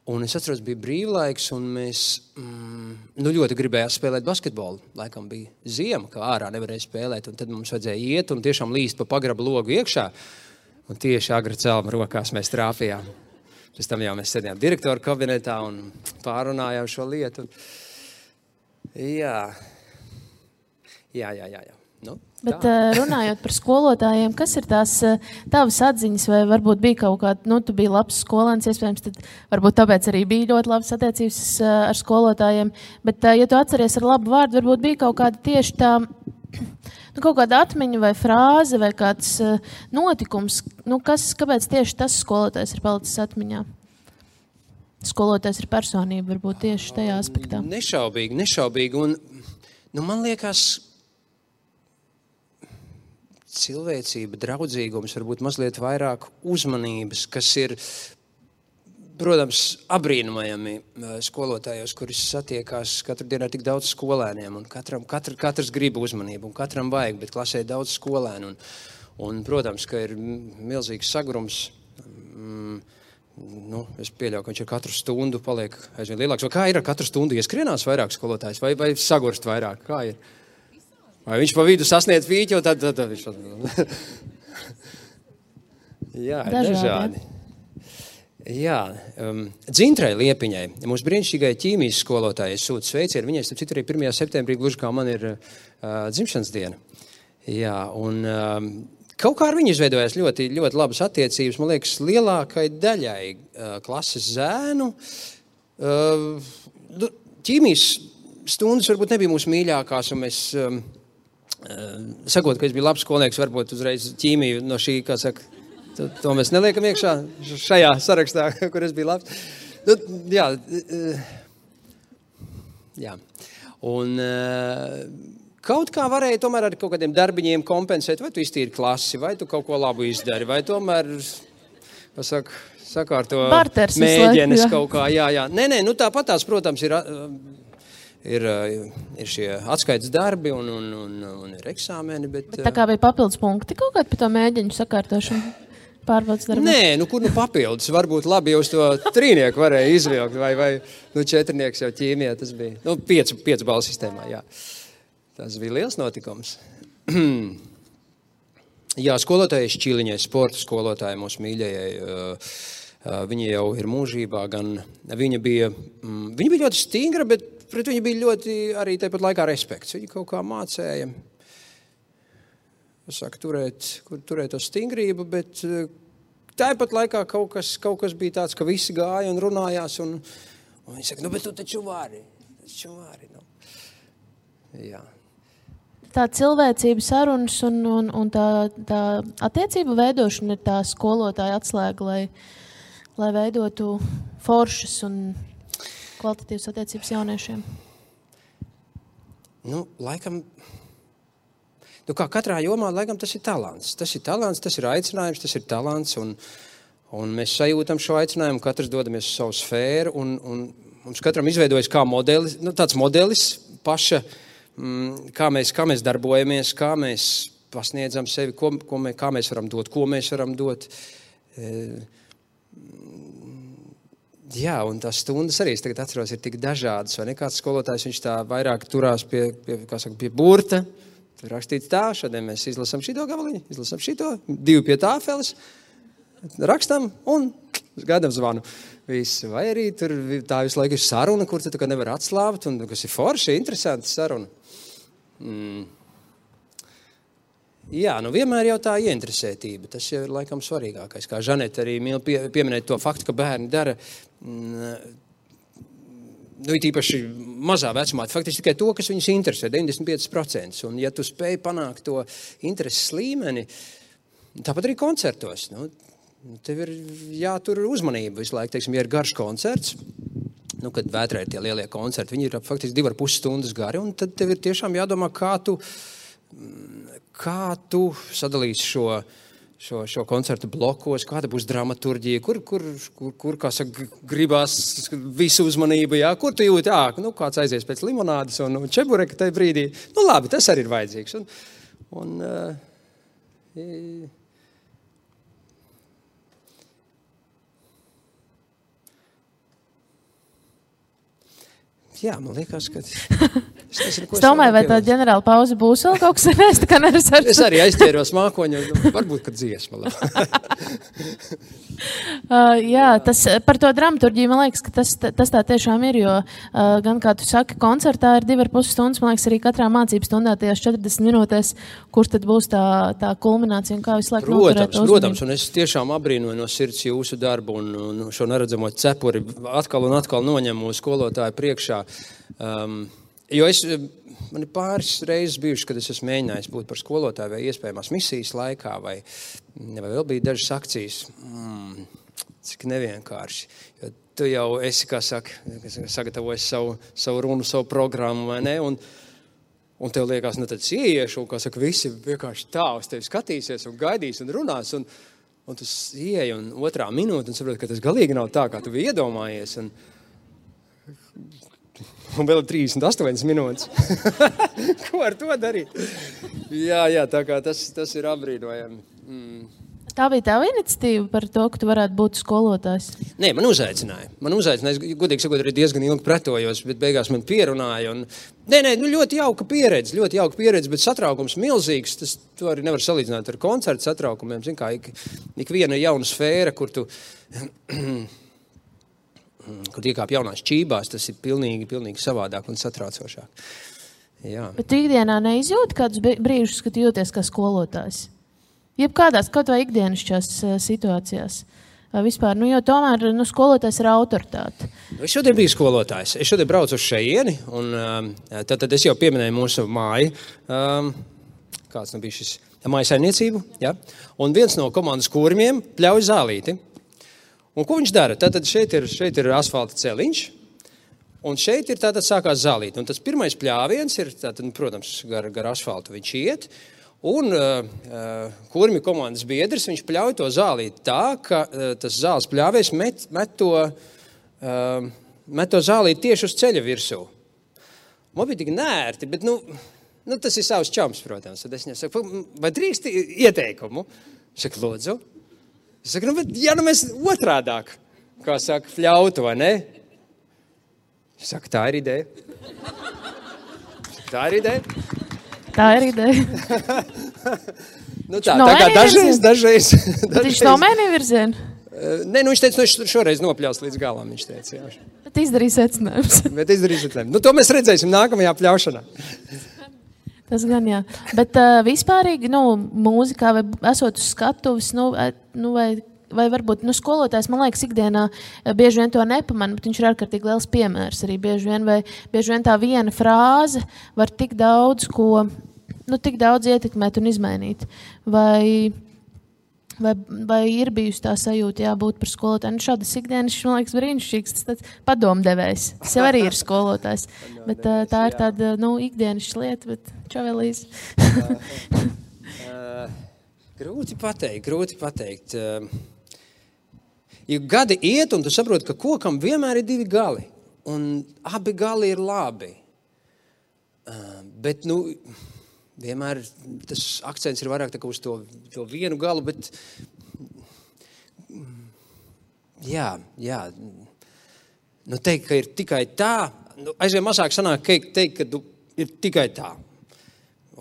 Speaker 2: Un es atceros, bija brīvlaiks, un mēs ļoti gribējām spēlēt basketbolu. Laikam bija ziema, kā ārā nevarēja spēlēt, un tad mums vajadzēja iet un tiešām līst pa pagraba logu iekšā. Un tieši Agra Cēlma rokās mēs trāpījām. Pēc tam jau mēs sēdījām direktoru kabinetā un pārunājām šo lietu. Jā.
Speaker 1: Bet runājot par skolotājiem, kas ir tās tavas atziņas, vai varbūt bija kaut kāda, tu biji labs skolēns, iespējams, tad varbūt tāpēc arī bija ļoti labas attiecības ar skolotājiem, bet, ja tu atceries ar labu vārdu, varbūt bija kaut kāda tieši tā, kaut kāda atmiņa vai frāze vai kāds notikums, kāpēc tieši tas skolotājs ir palicis atmiņā? Skolotājs ir personība, varbūt tieši tajā aspektā.
Speaker 2: Nešaubīgi, un man liekas, cilvēcība, draudzīgums, varbūt mazliet vairāk uzmanības, kas ir, protams, abrīnojami skolotājos, kuris satiekās katru dienu ar tik daudz skolēniem, un katrs grib uzmanību, un katram vajag, bet klasē daudz skolēnu, un protams, ka ir milzīgs sagrums. Es pieļauju, ka viņš ar katru stundu paliek aizvien lielāks. Vai kā ir ar katru stundu ieskrienās vairāk skolotājs, vai sagurst vairāk? Kā ir? Vai viņš pa vidu sasniedz vīķi, un tad viņš... Jā, dažādi. Jā, Dzintrai Liepiņai, mūsu brīnišķīgai ķīmijas skolotājai sūta sveicienu. Viņai, starp citu, arī 1. septembrī, gluži kā man ir dzimšanas diena. Jā, un kaut kā ar viņu izveidojās ļoti, ļoti labas attiecības. Man liekas, lielākai daļai klases zēnu. Ķīmijas stundas varbūt nebija mūsu mīļākās, un mēs... Sakot, ka es biju labs skolnieks, varbūt uzreiz ķīmiju no šī, kā saka, to mēs neliekam iekšā šajā sarakstā, kur es biju labs. Jā. Un kaut kā varēja tomēr ar kaut kādiem darbiņiem kompensēt, vai tu iztīri klasi, vai tu kaut ko labu izdari, vai tomēr, sakārto mēģienes kaut kā, jā. Nē, tāpat tās, protams, ir šie atskaites darbi un ir eksāmeni, bet
Speaker 1: tā kā bija papildus punkti kaut kādi par to mēģiņu sakārtošanu pārbaudas darbu?
Speaker 2: Nē, kur papildus? Varbūt labi jūs to 3 varēja izvilkt, vai 4 jau ķīmijā tas bija. 5 balvu sistēmā, jā. Tas bija liels notikums. Jā, skolotāji Šķiliņai, sporta skolotāji mūsu mīļajai, viņa jau ir mūžībā, gan viņa bija ļoti stingra, bet pret viņu bija ļoti arī tāpat laikā respekts. Viņa kaut kā mācēja, turēt to stingrību, bet tāpat laikā kaut kas bija tāds, ka visi gāja un runājās, un viņi saka, bet tu taču vari. Jā.
Speaker 1: Tā cilvēcība sarunas un tā attiecība veidošana ir tā skolotāja atslēga, lai veidotu foršas un kvalitatīvas attiecības jauniešiem?
Speaker 2: Laikam, Nu, kā katrā jomā, laikam, tas ir talants. Tas ir talants, tas ir aicinājums, tas ir talants, un mēs sajūtam šo aicinājumu, katrs dodamies uz savu sfēru, un mums katram izveidojas kā modelis, tāds modelis paša, kā mēs darbojamies, kā mēs pasniedzam sevi, kā mēs varam dot, ko mēs varam dot. Jā, un tās stundas arī, es tagad atceros, ir tik dažādas, vai ne? Kāds skolotājs, viņš tā vairāk turās pie burta, tur rakstīts tā, šodien mēs izlasam šito gabaliņu, izlasam šito, 2 pie tāfeles, rakstam un gaidām zvanu. Visu. Vai arī tur tā visu laiku ir saruna, kur tu nevar atslābt, un kas ir forši, interesanti saruna. Jā, vienmēr jau tā ieinteresētība, tas jau ir laikam svarīgākais. Kā Žaneta arī mīl pieminēt to faktu, ka bērni dara, ir īpaši mazā vecumā, faktiski tikai to, kas viņus interesē, 95%. Un ja tu spēj panākt to intereses līmeni, tāpat arī koncertos, tev ir jātur uzmanība visu laiku, teiksim, ja ir garš koncerts, kad Vētrā ir tie lielie koncerti, viņi ir faktiski 2,5 stundas gari, un tad tev ir tiešām jādomā, kā tu sadalīsi šo koncertu blokos, kāda būs dramaturģija, kur kā saka, gribās visu uzmanību, jā, kur tu jūti, kāds aizies pēc limonādes un čebureka tajā brīdī. Labi, tas arī ir vajadzīgs. Jā, man liekas, ka... Es
Speaker 1: domāju, vai tā ģenerāla pauze būs vēl kaut kas, es tā kā neresaršu.
Speaker 2: Es arī aizķēros mākoņu, varbūt, kad dziesma.
Speaker 1: Jā, par to dramaturģiju, man liekas, ka tas tā tiešām ir, jo gan, kā tu saki, koncertā ir 2,5 stundas, man liekas, arī katrā mācību stundā tajās 40 minūtēs, kur tad būs tā kulminācija un kā visu laiku noturēt uzmanību. Protams,
Speaker 2: un es tiešām abrīnoju no sirds jūsu darbu un šo neredzamo cepuri atkal un atkal noņemu skolotāju priekšā. Jo man ir pāris reizes bijuši, kad es esmu mēģinājis būt par skolotāju vai iespējamās misijas laikā, vai vēl bija dažas akcijas. Cik nevienkārši. Jo tu jau esi, kā saka, sagatavojis savu runu, savu programmu, vai ne? Un tev liekas, tad ieiešu, un, kā saka, visi vienkārši tā uz tevi skatīsies un gaidīs un runās. Un tu ieej un 2. minūte un saproti, ka tas galīgi nav tā, kā tu biji iedomājies. Un vēl 38 minūtes. Ko ar to darīt? Jā, tā kā tas ir apbrīnojami.
Speaker 1: Tā bija tava iniciatīva par to, ka tu varētu būt skolotājs?
Speaker 2: Nē, man uzaicināja. Es godīgi sakot, arī diezgan ilgi pretojos, bet beigās man pierunāja. Ļoti jauka pieredze, bet satraukums milzīgs. To arī nevar salīdzināt ar koncertu satraukumiem. Zin kā, ik viena jauna sfēra, kur tu... Kad iekāp jaunās čībās, tas ir pilnīgi savādāk un satraucošāk. Jā.
Speaker 1: Bet tu ikdienā neizjūti kādus brīžus, kad jūties kā skolotājs? Jebkādās, kaut vai ikdienišķās situācijās? Vai vispār, jo tomēr skolotājs ir autoritāte.
Speaker 2: Es šodien biju skolotājs. Es šodien braucu uz šeieni, un tad es jau pieminēju mūsu māju. Kāds bija šis? Mājasaimniecību, ja? Un viens no komandas kūrmiem pļauj zālīti. Un ko viņš dara? Tātad šeit ir asfalta celiņš, un šeit ir tātad sākās zālīt. Un tas pirmais pļāviens ir, tātad, protams, gar asfaltu viņš iet, un kurmi komandas biedrs, viņš pļauj to zālīt tā, ka tas zāles pļāvies met to zālīt tieši uz ceļa virsū. Man bija tik nērti, bet, tas ir savs čams, protams. Tad es viņam saku, vai drīkst ieteikumu? Saku, lūdzu. Es saku, bet mēs otrādāk, kā saka, fļautu, vai ne? Es saku, tā ir ideja. Tā ir ideja. Tā kā dažreiz.
Speaker 1: Viņš nomainīja virzienu?
Speaker 2: Nē, viņš teica, šoreiz nopļaus līdz galam, viņš teica. Jā.
Speaker 1: Bet izdarīja secinājums.
Speaker 2: To mēs redzēsim nākamajā pļaušanā.
Speaker 1: Tas gan jā. Bet vispārīgi, mūzikā vai esot uz skatuves, vai varbūt, skolotājs, man liekas, ikdienā bieži vien to nepamanā, bet viņš ir ārkārtīgi liels piemērs arī bieži vien tā viena frāze var tik daudz ko, tik daudz ietekmēt un izmainīt. Vai vai ir bijusi tā sajūta jābūt par skolotāju. Nu, šādas ikdienas, man liekas, brīnišķīgs, tas tāds padomdevējs. Sev arī ir skolotājs, bet tā ir tāda, ikdienas lieta, bet čavelīs.
Speaker 2: Grūti pateikt. Jo gadi iet, un tu saproti, ka kokam vienmēr ir divi gali, un abi gali ir labi. Bet, vienmēr tas akcents ir vairāk uz to vienu galu, bet jā. Teikt, ka ir tikai tā, aizvien mazāk sanāk teikt, ka ir tikai tā.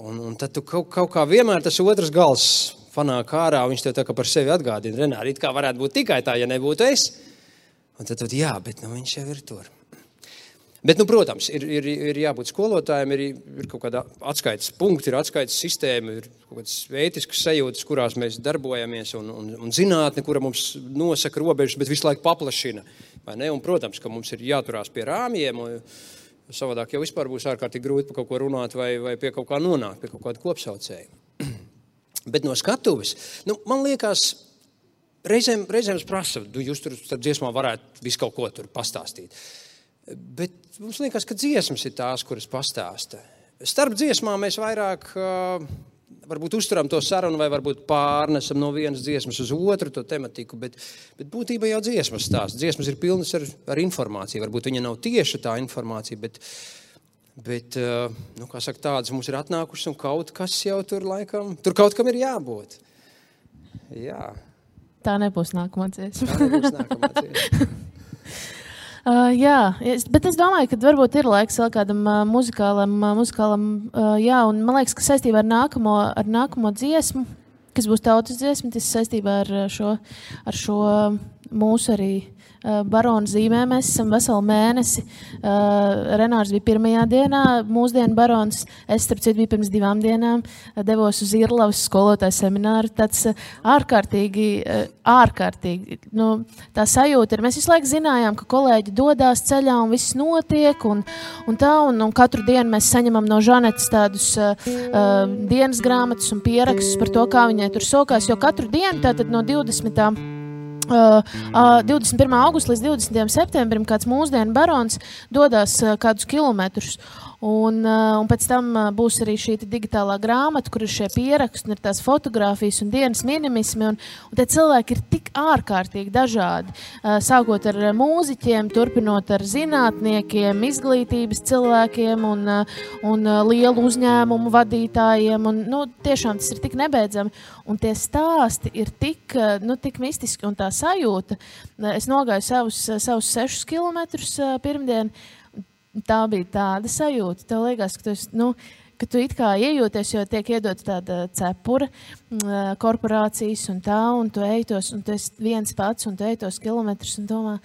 Speaker 2: Un tad tu kaut kā vienmēr tas otrs gals fanāk ārā, viņš tev tā kā par sevi atgādina. Renāri, it kā varētu būt tikai tā, ja nebūtu es. Un tad jā, bet viņš jau ir tur. Bet, protams, ir jābūt skolotājiem, ir kaut kāda atskaites punkti, ir atskaites sistēma, ir kaut kādas ētiskas sajūtas, kurās mēs darbojamies, un zinātne, kura mums nosaka robežas, bet visu laiku paplašina. Vai ne? Un, protams, ka mums ir jāturās pie rāmjiem, un savādāk jau vispār būs ārkārtīgi grūti par kaut ko runāt vai pie kaut kā nonākt, pie kaut kāda kopsaucēja. Bet no skatuves, man liekas, reizēm es prasu, jūs tur starp dziesmām varētu visu kaut ko tur pastāstīt. Bet mums liekas, ka dziesmas ir tās, kuras pastāsta. Starp dziesmām mēs vairāk varbūt uzturam to sarunu vai varbūt pārnesam no vienas dziesmas uz otru to tematiku, bet būtībā jau dziesmas stāsta. Dziesmas ir pilnas ar informāciju. Varbūt viņa nav tieši tā informācija, bet kā saka, tādas mums ir atnākušas un kaut kas jau tur laikam, tur kaut kam ir jābūt. Jā.
Speaker 1: Tā nebūs nākamā dziesma. Bet es domāju, ka varbūt ir laiks vēl kādam muzikālam, un man liekas, ka saistībā ar nākamo dziesmu, kas būs tautas dziesma, tas saistībā ar šo mūsu arī Barona zīmē. Mēs esam veselu mēnesi. Renārs bija pirmajā dienā, mūsdienu barons. Es, starp citu, biju pirms 2 dienām. Devos uz Irlavas skolotāju semināru. Tāds ārkārtīgi, tā sajūta ir. Mēs visu laiku zinājām, ka kolēģi dodās ceļā un viss notiek. Un katru dienu mēs saņemam no Žanetes tādus dienas grāmatas un pierakstus par to, kā viņai tur sokās. Jo katru dienu, tātad no 21. augusta līdz 20. septembrim kāds mūsdienu barons dodās kādus kilometrus. Un pēc tam būs arī šī digitālā grāmata, kur ir šie pieraksti, un ir tās fotogrāfijas un dienas minimismi. Un tie cilvēki ir tik ārkārtīgi dažādi. Sākot ar mūziķiem, turpinot ar zinātniekiem, izglītības cilvēkiem un lielu uzņēmumu vadītājiem. Un, tiešām tas ir tik nebeidzami. Un tie stāsti ir tik mistiski un tā sajūta. Es nogāju savus 6 kilometrus pirmdien. Tā bija tāda sajūta. Tev liekas, ka tu it kā iejūties, jo tiek iedot tāda cepura, korporācijas un tā, un tu ejtos, un tu esi viens pats, un tu ejtos kilometrus, un domā,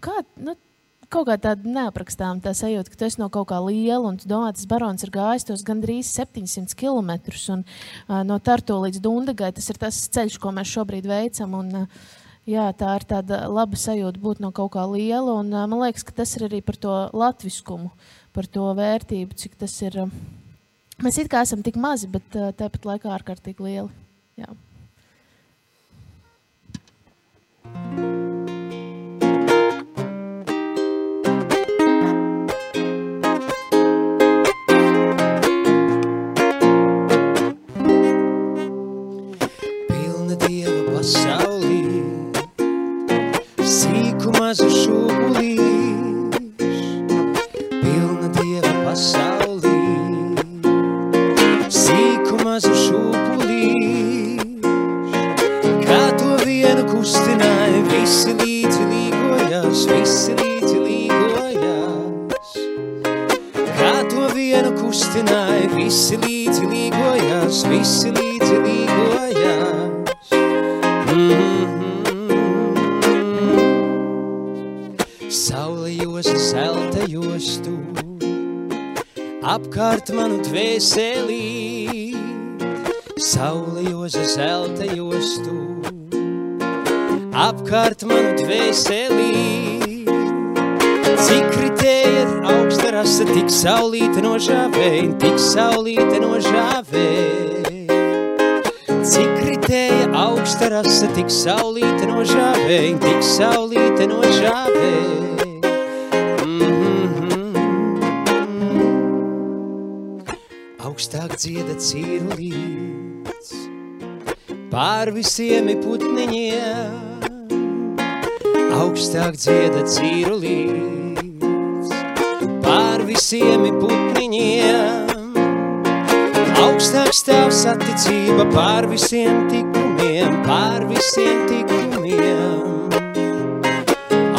Speaker 1: kaut kā tāda neaprakstām tā sajūta, ka tu esi no kaut kā liela, un tu domā, tas barons ir gājis tos gandrīz 700 kilometrus, un no Tartu līdz Dundagai, tas ir tas ceļš, ko mēs šobrīd veicam, un jā, tā ir tāda laba sajūta būt no kaut kā liela, un man liekas, ka tas ir arī par to latviskumu, par to vērtību, cik tas ir. Mēs it kā esam tik mazi, bet tāpat laikā ārkārtīgi lieli. Jā.
Speaker 2: Pilna Dieva pasaulī, sīku mazu šūpulīšu, pilna Dieva pasaulī, sīku mazu šūpulīšu, kā to vienu kustināja, visi līdzi līgojās, kā to vienu kustināja, visi līdzi līgojās, Saule josa, zelta jostu, apkārt manu dvēselī. Saule josa, zelta jostu, apkārt manu dvēselī. Cik kritēja augsta rasa, tik saulīte nožāvēja, Cik kritēja augsta augsta rasa, tik saulīte no žāvēja, tik saulīte no žāvēja. Augstāk dzieda cīrulīts, pār visiem putniņiem. Augstāk dzieda cīrulīts, pār visiem putniņiem. Augstāk stāv saticība pār visiem tikumiem, pār visiem tikumiem.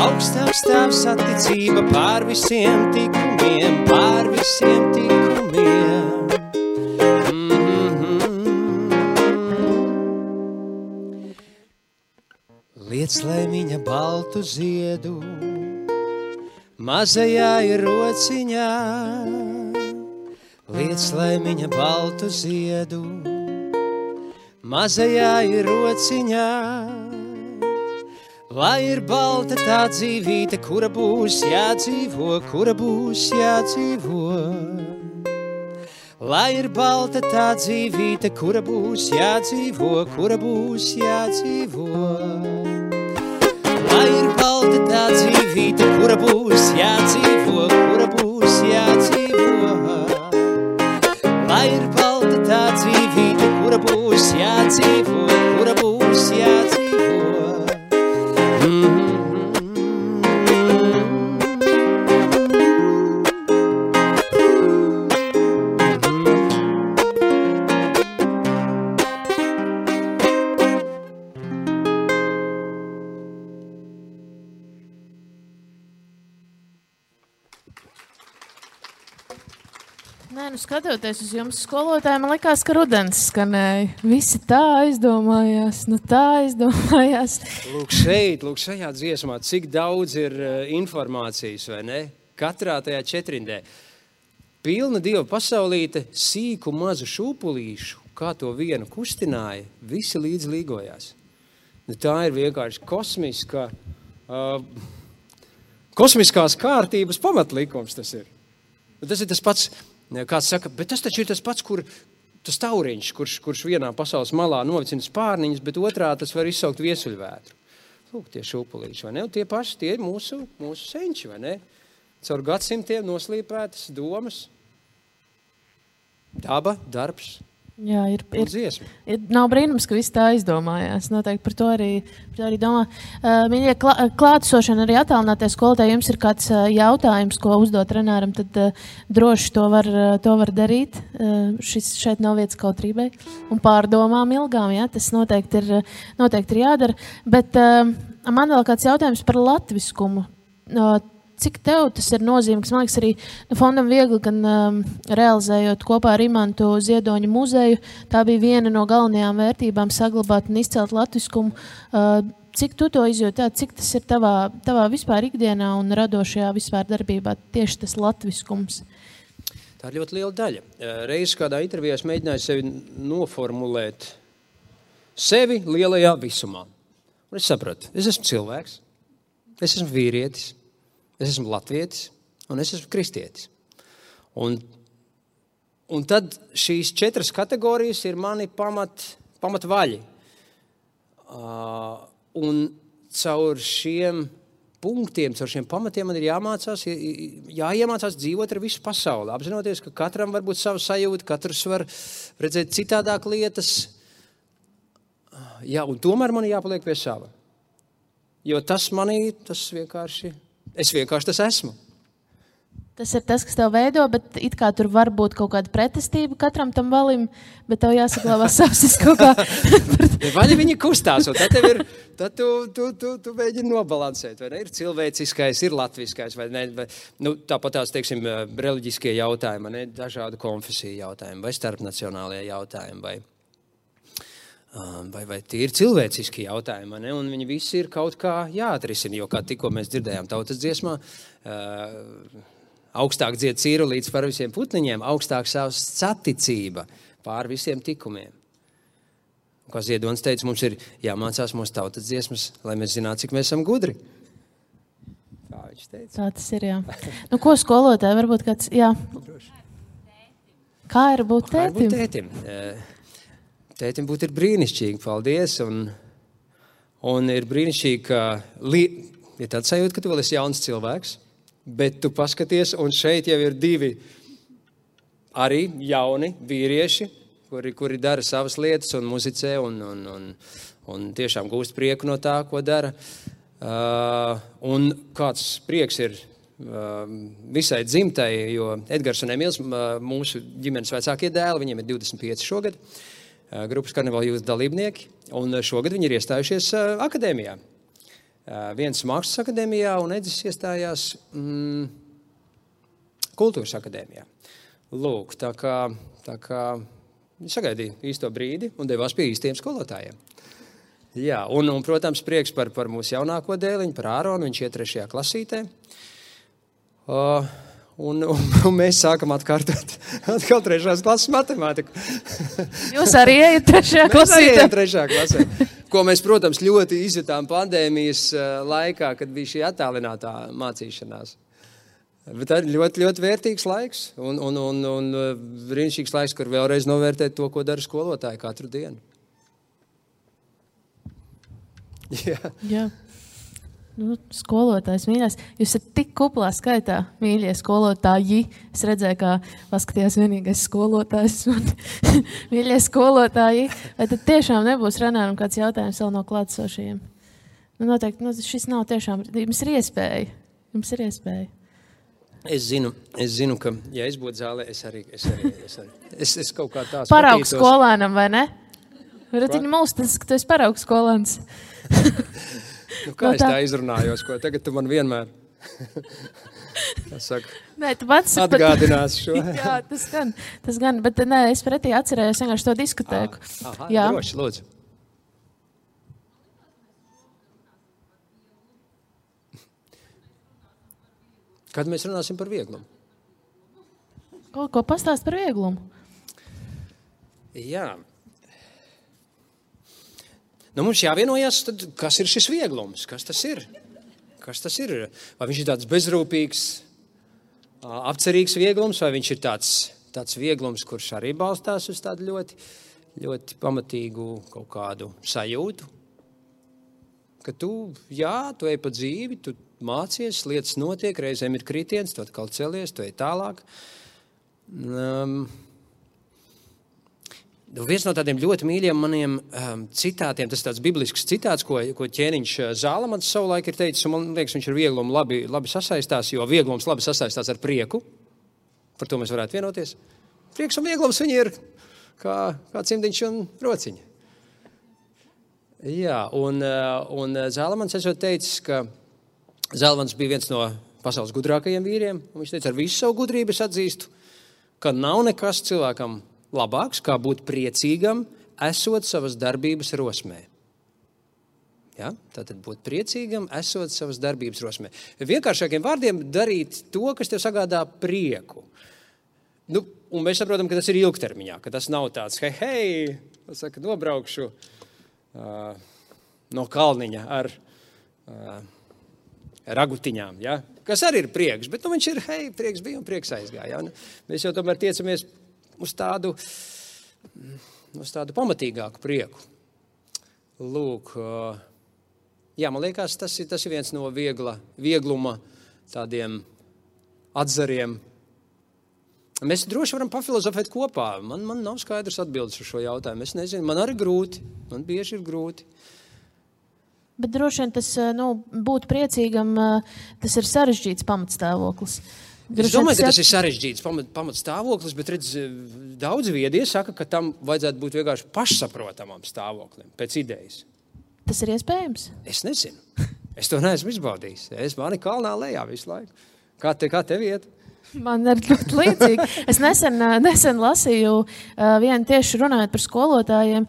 Speaker 2: Augstāk stāv saticība pār visiem tikumiem, pār visiem tikumiem. Liec laimiņa baltu ziedu, mazajā ir rociņā. Liec laimiņa baltu ziedu, mazajā ir rociņā. Lai ir balta tā dzīvīte, kura būs jādzīvo, kura būs jādzīvo. Lai ir balta tā dzīvīte, kura būs jādzīvo, kura būs jādzīvo. Lai ir balta tā dzīvīte, kura būs jādzīvo, kura būs jādzīvo. Lai ir balta tā dzīvīte, kura būs jādzīvo, kura būs jādzīvo.
Speaker 1: Nē, nu skatoties uz jums skolotāji, man likās, ka rudens skanēja. Visi tā aizdomājās,
Speaker 2: Lūk šajā dziesmā, cik daudz ir informācijas, vai ne? Katrā tajā četrindē. Pilna Dieva pasaulīte, sīku mazu šūpulīšu, kā to vienu kustināja, visi līdz līgojās. Nu, tā ir vienkārši kosmiskās kārtības pamatlikums tas ir. Nu, tas ir tas pats. Kāds saka, bet tas taču ir tas pats, tas tauriņš, kurš vienā pasaules malā novicina spārniņus, bet otrā tas var izsaukt viesuļvētru. Lūk, tie šūpulīši, vai ne? Un tie paši, tie ir mūsu senči, vai ne? Caur gadsimtiem noslīpētas domas, daba, darbs.
Speaker 1: Jā, nav brīnums, ka visi tā aizdomājās. Noteikti par to arī domā. Mīļie klātesošana arī attālinātie skolotāji, jums ir kāds jautājums, ko uzdot Renāram, tad droši to var darīt. Šeit nav vietas kautrībai un pārdomām ilgām, jā, tas noteikti ir jādara. Bet man vēl kāds jautājums par latviskumu. Cik tev tas ir nozīmīgs? Man liekas, arī fondam viegli, gan realizējot kopā ar Imantu Ziedoņa muzeju, tā bija viena no galvenajām vērtībām saglabāt un izcelt latviskumu. Cik tu to izjūti? Cik tas ir tavā vispār ikdienā un radošajā vispār darbībā tieši tas latviskums?
Speaker 2: Tā ir ļoti liela daļa. Reiz kādā intervijā es mēģināju sevi noformulēt sevi lielajā visumā. Un es sapratu, es esmu cilvēks, es esmu vīrietis, es esmu latvietis un es esmu kristietis. Un tad šīs 4 kategorijas ir mani pamatvaļi. Un caur šiem punktiem, caur šiem pamatiem man ir jāiemācās dzīvot ar visu pasauli. Apzinoties, ka katram var būt sava sajūta, katrs var redzēt citādāk lietas. Jā, un tomēr man jāpaliek pie sava. Jo tas vienkārši... Es vienkārši tas esmu.
Speaker 1: Tas ir tas, kas tev veido, bet it kā tur var būt kaut kāda pretestība katram tam valim, bet tev jāsaglabā savs kaut kā.
Speaker 2: Vaļi viņi kustās, un tad tu mēģini nobalansēt, vai ne? Ir cilvēciskais, ir latviskais, vai ne? Tāpat tās, teiksim, reliģiskie jautājumi, ne? Dažādu konfesiju jautājumi, vai starpnacionālie jautājumi, vai tie ir cilvēciski jautājumi, ne? Un viņi visi ir kaut kā jāatrisina, jo kā tikko mēs dzirdējām tautas dziesmā, augstāk dzied cīrulīts par visiem putniņiem, augstāk savs saticība pār visiem tikumiem. Un, kā Ziedonis teica, mums ir jāmācās mūsu tautas dziesmas, lai mēs zinātu, cik mēs esam gudri. Tā viņš teica.
Speaker 1: Tā tas ir, jā. Nu, ko skolotāji, varbūt kāds, jā. Kā ir būt tētim?
Speaker 2: Tētim būt ir brīnišķīgi, paldies. Un ir brīnišķīgi, ka ir tāds sajūta, ka tu vēl esi jauns cilvēks, bet tu paskaties, un šeit jau ir 2 arī jauni vīrieši, kuri dara savas lietas un muzicē un tiešām gūst prieku no tā, ko dara. Un kāds prieks ir visai dzimtai, jo Edgars un Emils, mūsu ģimenes vecākie dēli, viņiem ir 25 šogad, grupas Karnevāla jūtas dalībnieki, un šogad viņi ir iestājušies akadēmijā. Viens mākslas akadēmijā, un Edis iestājās kultūras akadēmijā. Lūk, tā kā sagaidīja īsto brīdi un devās pie īstiem skolotājiem. Jā, un protams, prieks par mūsu jaunāko dēliņu, par Āronu, viņš iet 3. klasītē. Un mēs sākam atkārtot atkal 3. klases matemātiku.
Speaker 1: Jūs arī ejat 3. klasē?
Speaker 2: Mēs arī ejam 3. klasē. Ko mēs, protams, ļoti izjutām pandēmijas laikā, kad bija šī attālinātā mācīšanās. Bet tā ir ļoti, ļoti vērtīgs laiks un brīnišķīgs laiks, kur vēlreiz novērtēt to, ko dara skolotāji katru dienu.
Speaker 1: Jā. Nu, skolotājs mīļās. Jūs esat tik kuplā skaitā, mīļie skolotāji. Es redzēju, kā paskatījās vienīgais skolotājs un mīļie skolotāji. Vai tad tiešām nebūs Renāram kāds jautājums vēl no klātsošajiem? Nu, noteikti, šis nav tiešām, jums ir iespēja.
Speaker 2: Es zinu, ka, ja es būtu zālē, es kaut kā tās
Speaker 1: paraugs skolēnam, vai ne? Varat viņu mūstas, ka tu esi paraugs skolēns.
Speaker 2: Nu, kā es tā izrunājos, ko tagad tu man vienmēr atgādinās šo?
Speaker 1: Jā, tas gan, bet nē, es pretī atcerējos vienkārši to diskotēku. Jā.
Speaker 2: Droši, lūdzu. Kad mēs runāsim par vieglumu?
Speaker 1: Ko pastāst par vieglumu?
Speaker 2: Jā. Nu, mums jāvienojās, tad, kas ir šis vieglums? Kas tas ir? Vai viņš ir tāds bezrūpīgs, apcerīgs vieglums, vai viņš ir tāds vieglums, kurš arī balstās uz tādu ļoti, ļoti pamatīgu kaut kādu sajūtu? Ka tu ej pa dzīvi, tu mācies, lietas notiek, reizēm ir kritiens, tu atkal celies, tu ej tālāk. Viens no tādiem ļoti mīļiem maniem citātiem, tas ir tāds biblisks citāts, ko ķēniņš Zālamans savulaik ir teicis, un man liekas, viņš ar vieglumu labi sasaistās, jo vieglums labi sasaistās ar prieku. Par to mēs varētu vienoties. Prieks un vieglums viņi ir kā cimdiņš un rociņa. Jā, un Zālamans esot teicis, ka Zālamans bija viens no pasaules gudrākajiem vīriem, un viņš teica, ar visu savu gudrību es atzīstu, ka nav nekas cilvēkam labāks, kā būt priecīgam, esot savas darbības rosmē. Ja? Tātad būt priecīgam, esot savas darbības rosmē. Vienkāršākiem vārdiem darīt to, kas tev sagādā prieku. Nu, un mēs saprotam, ka tas ir ilgtermiņā, ka tas nav tāds, hei, nobraukšu no kalniņa ar ragutiņām, ja? Kas arī ir prieks, bet viņš ir, prieks bija un prieks aizgāja. Ja? Mēs jau tomēr tiecamies uz tādu pamatīgāku prieku. Lūk, jā, man liekas, tas ir viens no viegluma tādiem atzariem. Mēs droši varam pafilozofēt kopā. Man nav skaidrs atbildes uz šo jautājumu. Es nezinu, man arī grūti. Man bieži ir grūti.
Speaker 1: Bet droši vien tas, būt priecīgam, tas ir sarežģīts pamatstāvoklis.
Speaker 2: Es domāju, ka tas ir sarežģīts pamatstāvoklis, bet redz, daudz viedie saka, ka tam vajadzētu būt vienkārši pašsaprotamam stāvoklim, pēc idejas.
Speaker 1: Tas ir iespējams?
Speaker 2: Es nezinu. Es to neesmu izbaudījis. Mani kalnā lejā visu laiku. Kā tev iet?
Speaker 1: Man ir ļoti līdzīgi. Es nesen lasīju vienu tieši runājot par skolotājiem,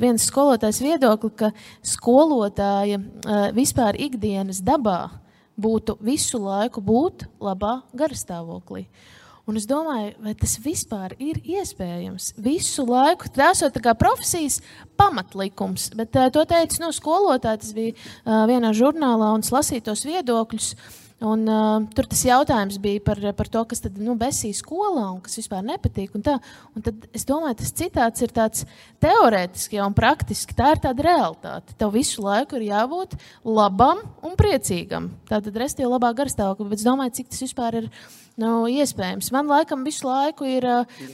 Speaker 1: viens skolotājs viedokli, ka skolotāja vispār ikdienas dabā būtu visu laiku būt labā garastāvoklī. Un es domāju, vai tas vispār ir iespējams? Visu laiku, tas ir tā kā profesijas pamatlikums, bet to teica skolotāji, tas bija vienā žurnālā un lasīja tos viedokļus. Un tur tas jautājums bija par to, kas tad besīja skolā un kas vispār nepatīk. Un tad es domāju, tas citāts ir tāds teorētiski un praktiski. Tā ir tāda realitāte. Tev visu laiku ir jābūt labam un priecīgam. Tātad restīvi labā garstāvokļa, bet es domāju, cik tas vispār ir iespējams. Man laikam visu laiku ir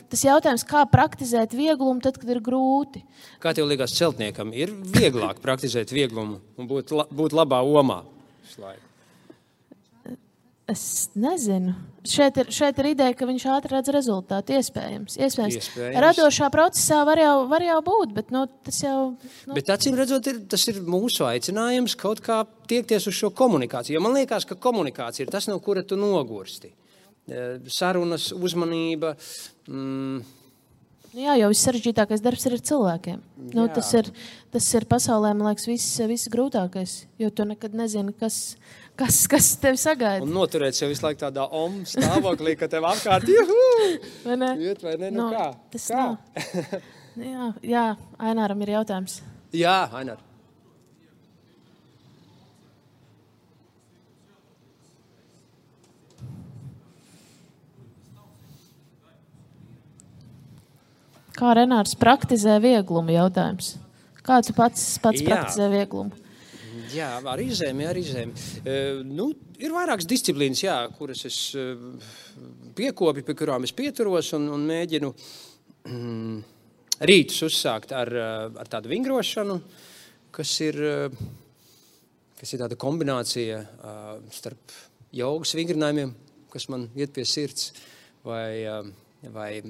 Speaker 1: tas jautājums, kā praktizēt vieglumu tad, kad ir grūti.
Speaker 2: Kā tev liekas celtniekam, ir vieglāk praktizēt vieglumu un būt labā omā visu laiku?
Speaker 1: Es nezinu. Šeit ir ideja, ka viņš ātri redz rezultātu. Iespējams. Radošā procesā var jau būt, bet tas jau...
Speaker 2: Bet acīm redzot, tas ir mūsu aicinājums kaut kā tiekties uz šo komunikāciju. Jo man liekas, ka komunikācija ir tas, no kura tu nogursti. Sarunas, uzmanība...
Speaker 1: Jā, jo viss sarežģītākais darbs ir ar cilvēkiem. Tas ir pasaulē, man liekas, viss grūtākais. Jo tu nekad nezini, kas tevi sagaida.
Speaker 2: Un noturēt sev visu laiku tādā stāvoklī, ka tev apkārt juhu!
Speaker 1: Vai ne?
Speaker 2: Iet, vai ne? Nu kā?
Speaker 1: Tas kā? Jā, Aināram ir jautājums.
Speaker 2: Jā, Ainar.
Speaker 1: Kā Renārs praktizē vieglumu jautājums? Kā tu pats praktizē vieglumu?
Speaker 2: Jā, ar izēmi. Ir vairākas disciplīnas, kuras es piekopju, pie kurām es pieturos un mēģinu rītus uzsākt ar tādu vingrošanu, kas ir tāda kombinācija starp jogas vingrinājumiem, kas man iet pie sirds, vai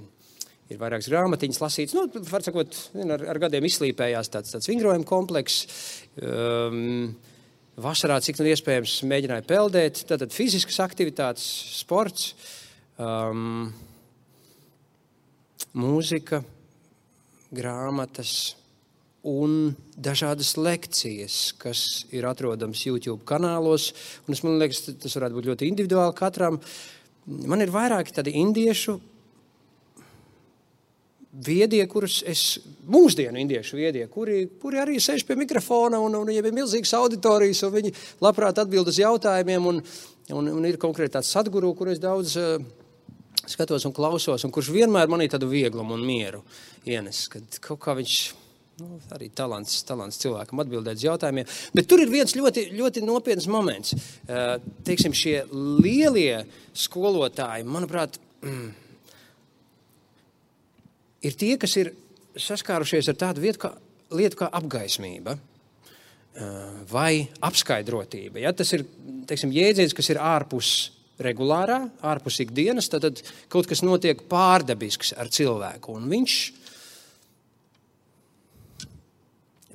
Speaker 2: ir vairākas grāmatiņas lasītas. Var sakot, ar gadiem izslīpējās tāds vingrojuma komplekss. Vasarā, cik nu iespējams, mēģināju peldēt. Tātad fiziskas aktivitātes, sports, mūzika, grāmatas un dažādas lekcijas, kas ir atrodams YouTube kanālos. Un man liekas, tas varētu būt ļoti individuāli katram. Man ir vairāki tādi indiešu viedie, mūsdienu indiešu viedie, kuri arī sēž pie mikrofona un viņiem ir milzīgas auditorijas, un viņi labprāt atbild uz jautājumiem, un ir konkrēti tāds Sadguru, kur es daudz skatos un klausos, un kurš vienmēr manī tādu vieglumu un mieru ienes, kad kaut kā viņš, arī talants cilvēkam atbildēt uz jautājumiem. Bet tur ir viens ļoti, ļoti nopietns moments. Teiksim, šie lielie skolotāji, manuprāt, ir tie, kas ir saskārušies ar tādu lietu kā apgaismība vai apskaidrotība. Ja? Tas ir, teiksim, jēdziens, kas ir ārpus regulārā, ārpus ikdienas, tad kaut kas notiek pārdabisks ar cilvēku. Un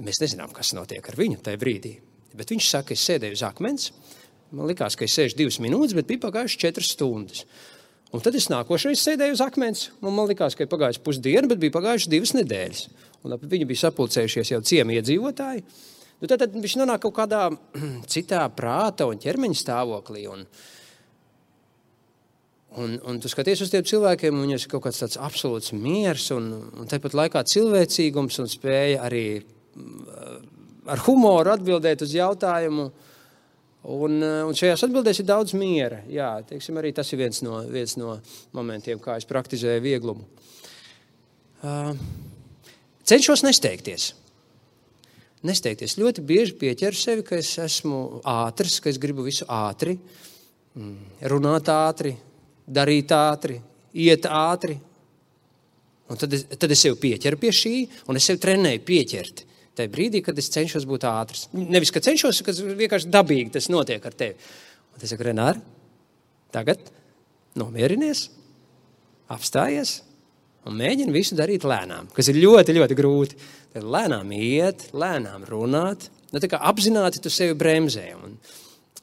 Speaker 2: mēs nezinām, kas notiek ar viņu tajā brīdī. Bet viņš saka, es sēdēju uz akmens, man likās, ka es sēžu 2 minūtes, bet bija pagājuši 4 stundas. Un tad es nākošais sēdēju uz akmens, un man likās, ka ir pagājuši pusdiena, bet bija pagājuši 2 nedēļas. Un viņi bija sapulcējušies jau ciemi iedzīvotāji. Tad viņš nonāk kaut kādā citā prāta un ķermeņa stāvoklī. Un tu skaties uz tiem cilvēkiem, un viņiem ir kaut kāds tāds absolūts miers, un tāpat laikā cilvēcīgums un spēja arī ar humoru atbildēt uz jautājumu. Un šajās atbildēs ir daudz miera. Jā, teiksim, arī tas ir viens no momentiem, kā es praktizēju vieglumu. Cenšos nesteigties. Ļoti bieži pieķeru sevi, ka es esmu ātrs, ka es gribu visu ātri, runāt ātri, darīt ātri, iet ātri. Un tad es sev pieķeru pie šī, un es sev trenēju pieķert. Tajā brīdī, kad es cenšos būt ātrs. Nevis, ka cenšos, ka vienkārši dabīgi tas notiek ar tevi. Un es saku, Renār, tagad nomierinies, apstājies un mēģini visu darīt lēnām, kas ir ļoti, ļoti grūti. Tad lēnām iet, lēnām runāt, tā kā apzināti tu sevi bremzē.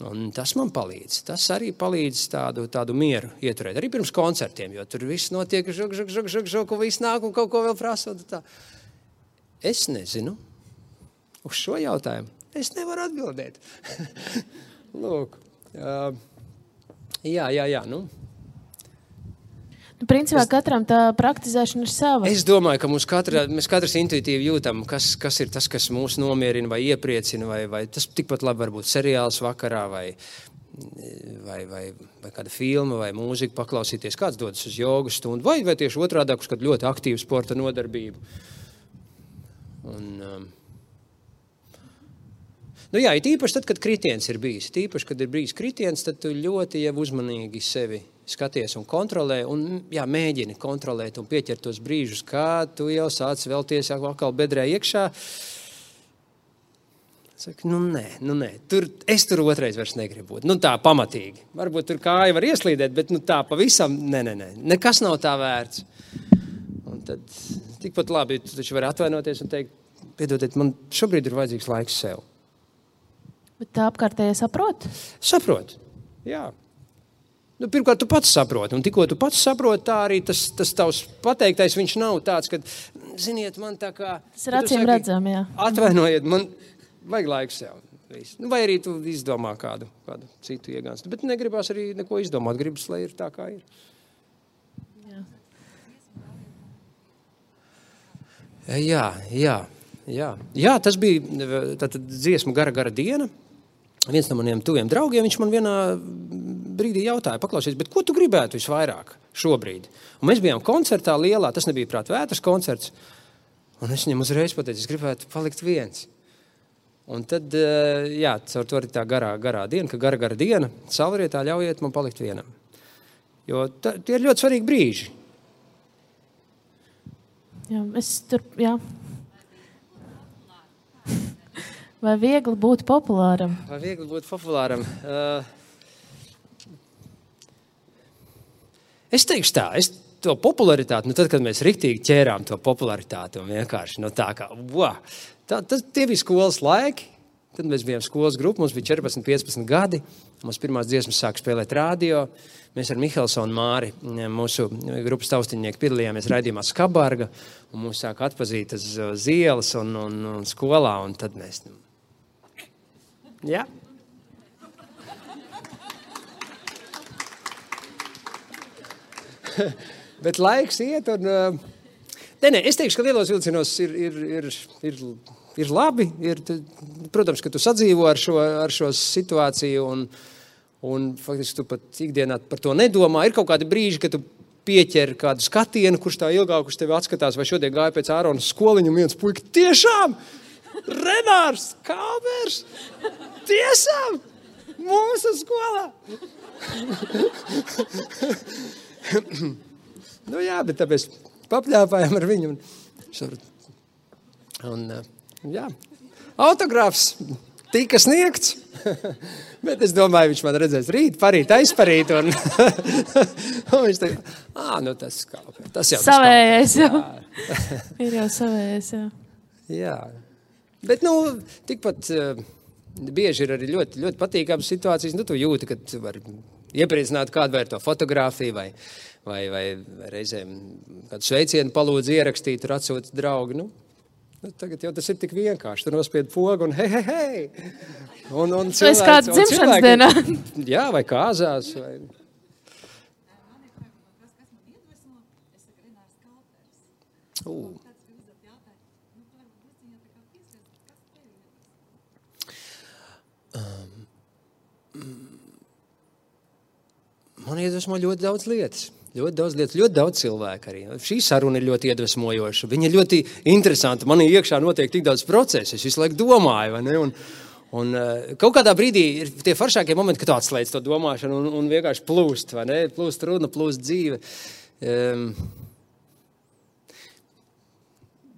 Speaker 2: Un tas man palīdz. Tas arī palīdz tādu mieru ieturēt. Arī pirms koncertiem, jo tur viss notiek, žuk, un viss nāk un kaut ko vēl prasa. Es nezinu. Uz šo jautājumu es nevaru atbildēt. Lūk. Jā.
Speaker 1: Principā katram tā praktizēšana ir sava.
Speaker 2: Es domāju, ka mēs katrs intuitīvi jūtam, kas ir tas, kas mūs nomierina vai iepriecina, vai tas tikpat labi var būt seriāls vakarā, vai vai kāda filma vai mūzika paklausīties, kāds dodas uz jogu stundu, vai tieši otrādāk uz kādu ļoti aktīvu sporta nodarbību. Nu jā, īpaši tad, kad kritiens ir bijis. Īpaši, kad ir bijis kritiens, tad tu ļoti jau uzmanīgi sevi skaties un kontrolē, un jā, mēģini kontrolēt un pieķert tos brīžus, kā tu jau sāc vēlties atkal bedrē iekšā. Saka, nē, es tur otrais vairs negribu būt. Tā pamatīgi. Varbūt tur kāja var ieslīdēt, bet tā pavisam, nē. Nekas nav tā vērts. Un tad tikpat labi, tu taču vari atvainoties un teikt, piedodiet, man šobrīd ir vajadzīgs laiks sev.
Speaker 1: Bet tā apkārtējie saprot?
Speaker 2: Saprot, jā. Pirmkārt, tu pats saproti, un tikko tu pats saproti, tā arī tas tavs pateiktais, viņš nav tāds, ka, ziniet, man tā kā...
Speaker 1: Tas ir acīm redzam, jā.
Speaker 2: Atvainojiet, man... Vajag laiku sev. Vai arī tu izdomā kādu citu iegānstu. Bet negribās arī neko izdomāt. Gribas, lai ir tā, kā ir. Jā, tas bija tātad dziesmu gara diena. Viens no maniem tuviem draugiem, viņš man vienā brīdī jautāja, paklausies, bet ko tu gribētu visvairāk šobrīd? Un mēs bijām koncertā lielā, tas nebija prāt vētras koncerts. Un es viņam uzreiz pateicu, es gribētu palikt viens. Un tad, jā, caur to arī tā garā diena, ka gara diena, salvarietā ļaujiet man palikt vienam. Jo tie ir ļoti svarīgi brīži.
Speaker 1: Jā. Vai viegli būt populāram?
Speaker 2: Es teikšu tā, to popularitāti, tad, kad mēs riktīgi ķērām to popularitāti un vienkārši, tā kā, tie bija skolas laiki, tad mēs bijām skolas grupa, mums bija 14-15 gadi, mums pirmās dziesmas sāka spēlēt radio, mēs ar Mihelsonu Māri, mūsu grupas taustiņnieki, piedalījāmies raidījumā Skabarga, un mūs sāka atpazīt uz ielas un skolā, un tad mēs, jā. Bet laiks iet un... Nē, es teikšu, ka lielos vilcienos ir labi. Protams, ka tu sadzīvo ar šo situāciju un faktiski tu pat ikdienā par to nedomā. Ir kaut kādi brīži, kad tu pieķer kādu skatienu, kurš tā ilgāk uz tevi atskatās, vai šodien gāja pēc Ārona skoliņu un viens puika, tiešām! Renārs Kalbers! Tiešām! Mūsu skolā! Jā, bet tāpēc papļāpājām ar viņu. Jā, autogrāfs tika sniegts, bet es domāju, viņš man redzēs rīt, parīt, aizparīt, un viņš teica, tas Kalbers, tas jau
Speaker 1: savējais jau. Ir jau savējais, jā.
Speaker 2: Jā, bet, tikpat bieži ir arī ļoti, ļoti patīkāmas situācijas, tu jūti, ka tu vari iepriecināt kādu vai ar to fotogrāfiju, vai reizēm kādu sveicienu palūdzu ierakstīt, tur atsūta draugi. Tagad jau tas ir tik vienkārši. Tu nospied pogu un hei. Un cilvēki,
Speaker 1: vai kāds dzimšanas dienā.
Speaker 2: Jā, vai kāzās. Vai... Man iedvesmo ļoti daudz lietas. Ļoti daudz cilvēku arī. Šī saruna ir ļoti iedvesmojoša. Viņa ir ļoti interesanta. Man iekšā notiek tik daudz procesu. Es visu laiku domāju, vai ne? Un kaut kādā brīdī ir tie foršākie momenti, kad tu atslēdz to domāšanu un vienkārši plūst, vai ne? Plūst runa, plūst dzīve.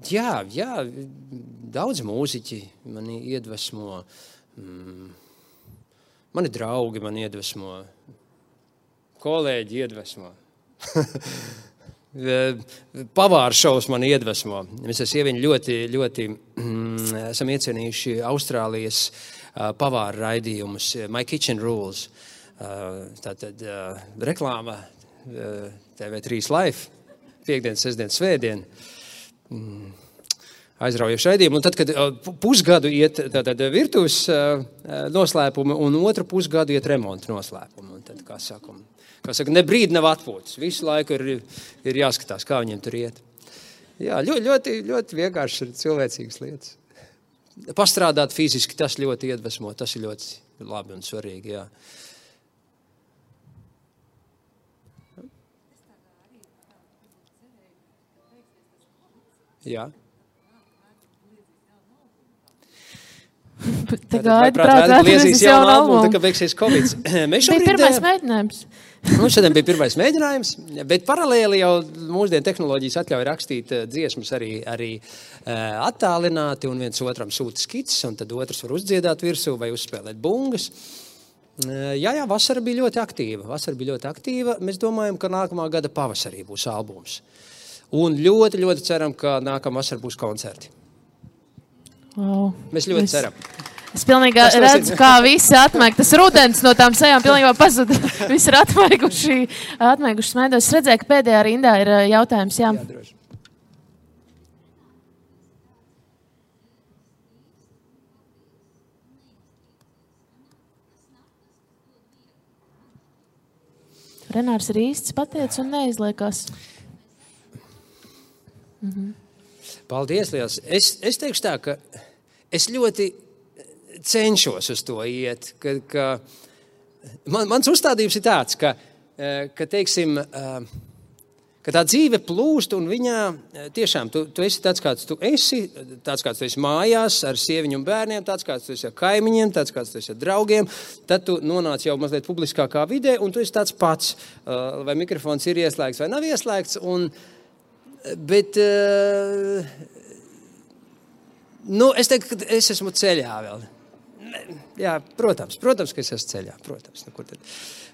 Speaker 2: Jā, daudz mūziķi mani iedvesmo. Mani draugi mani iedvesmo. Kolēģi iedvesmo. Pavāru šovs mani iedvesmo. Mēs ar sieviņu ļoti esam iecienījuši Austrālijas pavāru raidījumus, My Kitchen Rules. Tātad reklāma TV3 Live, piekdien, sestdien, svētdien. Aizraujoši raidījumi. Un tad, kad pusgadu iet virtuves noslēpumi un otru pusgadu iet remonta noslēpumi. Un tad, kā saka, ne brīdi nav atpūtas. Visu laiku ir jāskatās, kā viņiem tur iet. Jā, ļoti, ļoti vienkārši ir cilvēcīgas lietas. Pastrādāt fiziski, tas ļoti iedvesmo, tas ir ļoti labi un svarīgi, jā. Jā.
Speaker 1: Tā gaida prāt
Speaker 2: liezīs jaunu albumu, tā kā beigsies Covid.
Speaker 1: Bija pirmais mēģinājums.
Speaker 2: Šodien bija pirmais mēģinājums, bet paralēli jau mūsdienu tehnoloģijas atļauj rakstīt dziesmas arī attālināti, un viens otram sūta skices, un tad otrs var uzdziedāt virsū vai uzspēlēt bungas. Jā, vasara bija ļoti aktīva. Mēs domājam, ka nākamā gada pavasarī būs albums. Un ļoti, ļoti ceram, ka nākamā vasara būs koncerti.
Speaker 1: Wow.
Speaker 2: Mēs ļoti ceram.
Speaker 1: Es pilnīgi redzu, kā visi atmaig. Tas rudens no tām sejām pilnībā pazuda. Visi ir atmaiguši smaidos. Es redzēju, ka pēdējā rindā ir jautājums. Jā,
Speaker 2: droši.
Speaker 1: Renārs ir īsts pateicis un neizliekās.
Speaker 2: Paldies, liels. Es teikšu tā, ka es ļoti cenšos uz to iet. Mans uzstādījums ir tāds, ka teiksim, ka tā dzīve plūst un viņā tiešām tu esi tāds, kāds tu esi mājās ar sieviņu un bērniem, tāds, kāds tu esi ar kaimiņiem, tāds, kāds tu esi ar draugiem, tad tu nonāc jau mazliet publiskākā vidē un tu esi tāds pats, vai mikrofons ir ieslēgts vai nav ieslēgts, bet es teiktu, ka es esmu ceļā vēl. Jā, protams, ka es esmu ceļā, protams.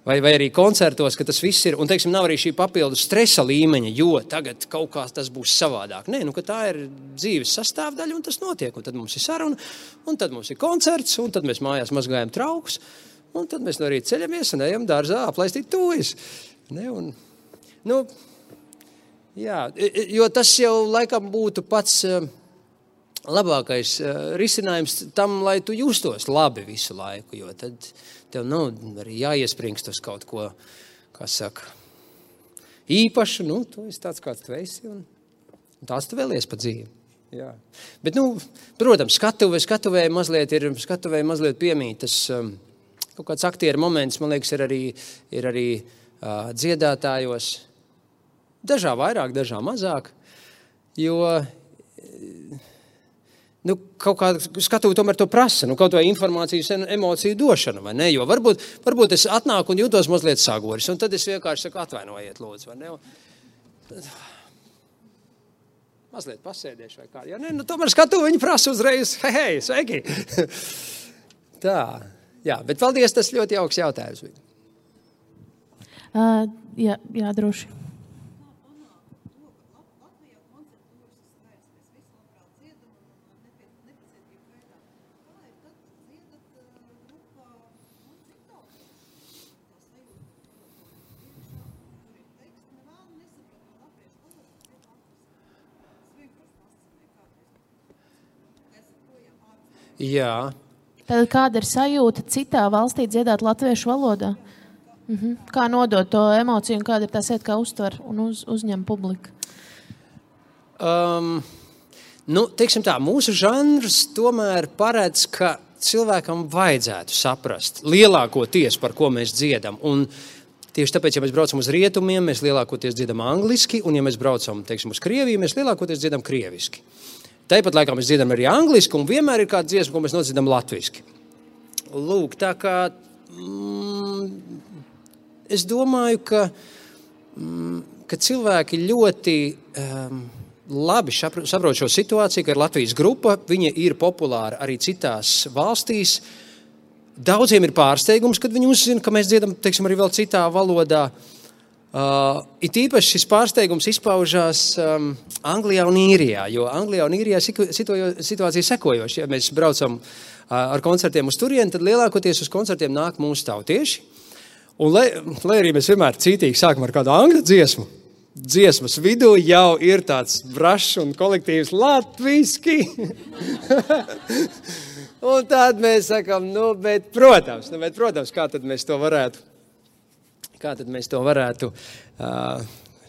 Speaker 2: Vai arī koncertos, ka tas viss ir, un teiksim, nav arī šī papildu stresa līmeņa, jo tagad kaut kā tas būs savādāk. Nē, ka tā ir dzīves sastāvdaļa, un tas notiek, un tad mums ir saruna, un tad mums ir koncerts, un tad mēs mājās mazgājam traukus, un tad mēs no rīta ceļamies un ejam dārzā aplaistīt tuvis. Jā, jo tas jau laikam būtu pats labākais risinājums tam, lai tu justos labi visu laiku, jo tad tev nav arī jāiespringst uz kaut ko, kā saka, īpašu, tu esi tāds, kāds tu esi, un tās tu vēlies pa dzīvi. Jā. Bet, protams, skatuvē mazliet piemīt, tas kaut kāds aktieru moments, man liekas, ir arī dziedātājos, dažā vairāk, dažā mazāk, jo kaut kā skatuvi tomēr to prasa, kaut vai informācijas emociju došana, vai ne? Jo varbūt es atnāku un jūtos mazliet sagoris, un tad es vienkārši saku, atvainojiet, lūdzu, vai ne? Mazliet pasēdiešu vai kā. Ja ne, tomēr skatuvi viņi prasa uzreiz, hei, sveiki! Tā, jā, bet paldies, tas ļoti jauks jautājums.
Speaker 1: Jā, droši.
Speaker 2: Jā.
Speaker 1: Tad kāda ir sajūta citā valstī dziedāt latviešu valodā? Kā nodot to emociju un kāda ir tā sēta, kā uztver un uzņem publika?
Speaker 2: Teiksim tā, mūsu žanrs tomēr paredz, ka cilvēkam vajadzētu saprast lielākoties, par ko mēs dziedam. Un tieši tāpēc, ja mēs braucam uz rietumiem, mēs lielākoties dziedam angliski, un ja mēs braucam, teiksim, uz Krieviju, mēs lielākoties dziedam krieviski. Tāpat laikā mēs dziedam arī angliski, un vienmēr ir kāda dziesma, ko mēs nodziedam latviski. Lūk, tā kā es domāju, ka cilvēki ļoti labi saprot šo situāciju, ka ir Latvijas grupa, viņa ir populāra arī citās valstīs. Daudziem ir pārsteigums, kad viņi uzzina, ka mēs dziedam, teiksim, arī vēl citā valodā. It īpaši šis pārsteigums izpaužās Anglijā un Īrijā, jo Anglijā un Īrijā situācija sekojoša. Ja mēs braucam ar koncertiem uz turieni, tad lielākoties uz koncertiem nāk mūsu tautieši. Un lai arī mēs vienmēr cītīgi sākam ar kādu angļu dziesmu, dziesmas vidū jau ir tāds brašs un kolektīvs latviski. Un tad mēs sakam, bet protams, kā tad mēs to varētu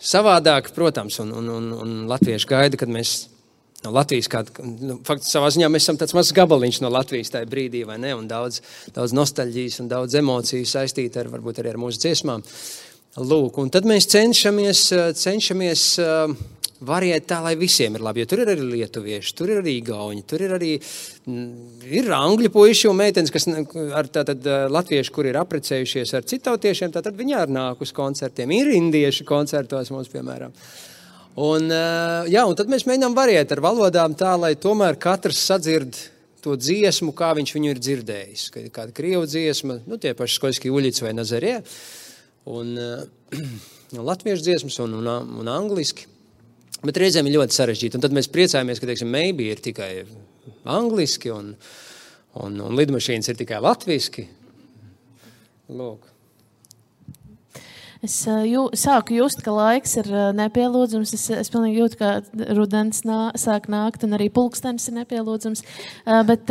Speaker 2: savādāk, protams, un latvieši gaida, kad mēs no Latvijas faktiski savā ziņā mēs esam tāds mazs gabaliņš no Latvijas tajā brīdī, vai ne, un daudz nostalģijas un daudz emociju saistīt varbūt arī ar mūsu dziesmām. Lūk, un tad mēs cenšamies variēt tā, lai visiem ir labi, jo tur ir arī lietuvieši, tur ir arī igauņi, tur ir arī ir angļu puiši un meitenes, kas ar tātad latvieši, kur ir aprecējušies ar citautiešiem, tātad viņi arī nāk uz koncertiem, ir indieši koncertos mums, piemēram. Un tad mēs mēģinām variēt ar valodām tā, lai tomēr katrs sadzird to dziesmu, kā viņš viņu ir dzirdējis. Kāda krievu dziesma, tie paši Skoļski Uļici vai Nazarie, un latviešu dziesmas un angliski. Bet reizēm ir ļoti sarežģīti, un tad mēs priecājamies, ka, teiksim, Maybe ir tikai angliski, un lidmašīnas ir tikai latviski. Lūk.
Speaker 1: Es sāku just, ka laiks ir nepielūdzams. Es pilnīgi jūtu, ka rudens sāk nākt, un arī pulkstenis ir nepielūdzams. Bet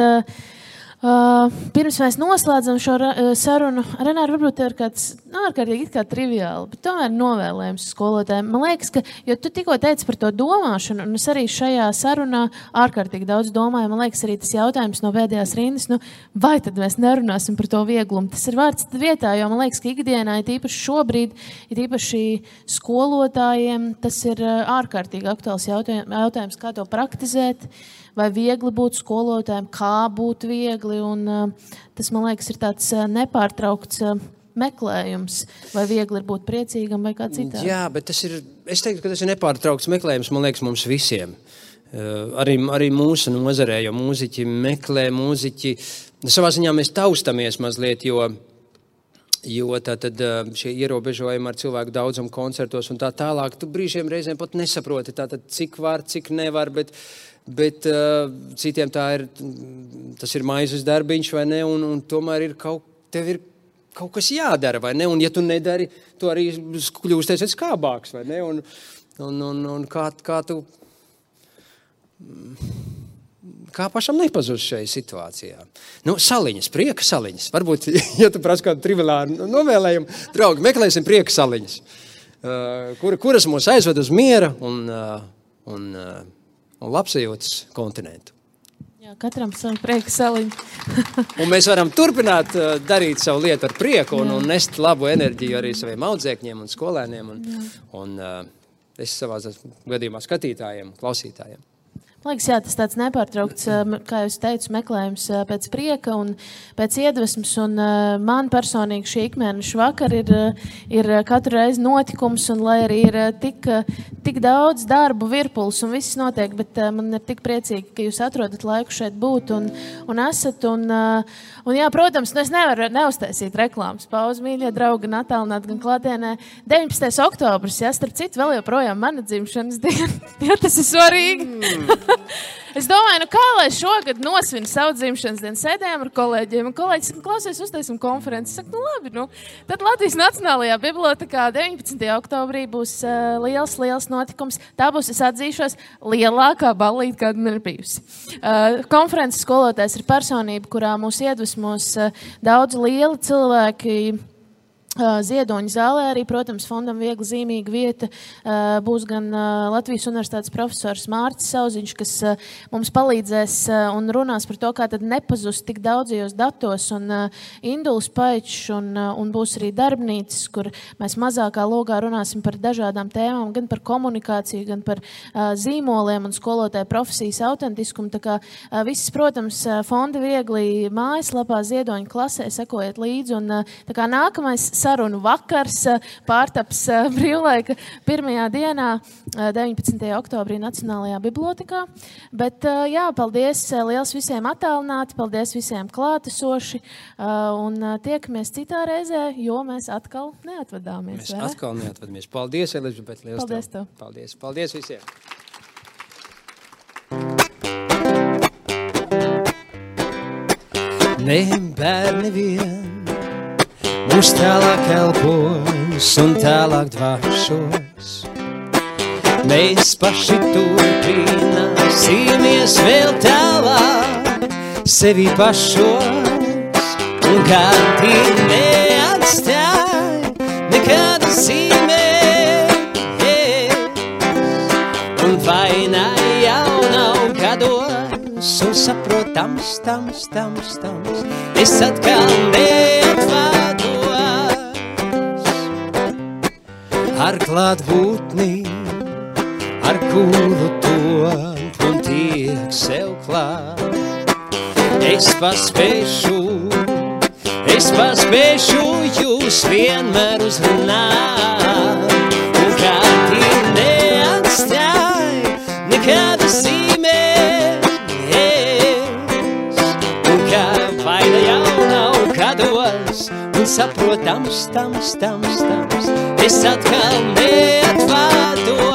Speaker 1: pirms mēs noslēdzam šo sarunu, Renāra, varbūt ir kāds ārkārtīgi it kā triviāli, bet tomēr novēlējums skolotājiem. Man liekas, ka, jo tu tikko teici par to domāšanu, un es arī šajā sarunā ārkārtīgi daudz domāju, man liekas arī tas jautājums no pēdējās rindas, vai tad mēs nerunāsim par to vieglumu? Tas ir vārds vietā, jo man liekas, ka ikdienā, ir īpaši šobrīd, ir īpaši skolotājiem, tas ir ārkārtīgi aktuāls jautājums, kā to praktizēt, vai viegli būt skolotājiem, kā būt viegli, un tas, man liekas, ir tāds nepārtraukts meklējums, vai viegli ir būt priecīgam, vai kā citādi. Jā,
Speaker 2: bet es teiktu, ka tas ir nepārtraukts meklējums, man liekas, mums visiem. Arī mūsu nozarē, jo mūziķi meklē, savā ziņā mēs taustamies mazliet, jo tātad šie ierobežojumi ar cilvēku daudzumu koncertos un tā tālāk, tu brīžiem reizēm pat nesaproti, tātad cik var, cik nevar, bet citiem tas ir maizes darbiņš, vai ne, un tomēr tev ir kaut kas jādara, vai ne, un ja tu nedari, tu arī kļūsties skābāks, vai ne, un kā tu, kā pašam nepazust šajā situācijā. Saliņas, prieka saliņas, varbūt, ja tu prasi kādu triviālu novēlējumu, draugi, meklēsim prieka saliņas, kuras mūs aizved uz miera un labsajūtas kontinentu.
Speaker 1: Jā, katram savu prieka saliņu.
Speaker 2: Un mēs varam turpināt darīt savu lietu ar prieku un nest labu enerģiju arī saviem audzēkņiem un skolēniem un es savā gadījumā skatītājiem, klausītājiem.
Speaker 1: Man liekas, jā, tas tāds nepārtraukts, kā jūs teicu, meklējums pēc prieka un pēc iedvesmas, un man personīgi šī ikmēneša vakar ir katru reizi notikums, un lai arī ir tik daudz darbu virpuls un viss notiek, bet man ir tik priecīgi, ka jūs atrodat laiku šeit būt un esat, un jā, protams, es nevaru neuztaisīt reklāmas pauzi, mīļie draugi, gan attālināt, gan klātienē. 19. oktobris, jā, starp citu, vēl joprojām mana dzimšanas diena, jā, tas ir svarīgi. Es domāju, kā lai šogad nosvinu savu dzimšanas dienu, sēdējām ar kolēģiem, un kolēģis saka, klausies, uztaisim konferenci. Es saku, labi, Tad Latvijas Nacionālajā bibliotēkā 19. oktobrī būs liels notikums. Tā būs, es atzīšos, lielākā ballīte, kāda man ir bijusi. Konferences skolotājs ir personība, kurā mūs iedvesmos daudz lieli cilvēki, Ziedoņa zālē arī, protams, fondam viegli zīmīga vieta. Būs gan Latvijas universitātes profesors Mārcis Sauziņš, kas mums palīdzēs un runās par to, kā tad nepazust tik daudzajos datos, un Induls Paičs, un būs arī darbnīcas, kur mēs mazākā logā runāsim par dažādām tēmām, gan par komunikāciju, gan par zīmoliem un skolotāju profesijas autentiskumu. Tā kā viss, protams, fondi viegli mājaslapā Ziedoņa klasē, sekojiet līdzi, un tā kā nākamais sarunu vakars pārtaps brīvlaika pirmajā dienā, 19. oktobrī Nacionālajā bibliotēkā. Bet jā, paldies liels visiem attālināti, paldies visiem klātesoši, un tiekamies citā reizē, jo mēs atkal neatvadāmies.
Speaker 2: Mēs atkal neatvadamies. Paldies, Elizabete, liels
Speaker 1: paldies tev.
Speaker 2: Paldies visiem. Ne bērni vien mūs tālāk elpos un tālāk dvāšos. Mēs paši turpināsimies vēl tālāk sevi pašos, un kādi neatstāj nekāda zīmē. Un vaina jau nav gados, un saprotams, es atkal neatvados. ar klātbūtni, ar kuru top un tiek sev klāt. Es paspēšu jūs vienmēr uzrunāt, un kādi neatstāj nekāda zīmē, un kā vaina jau nav kādos, un saprotams, es atkal neatvados.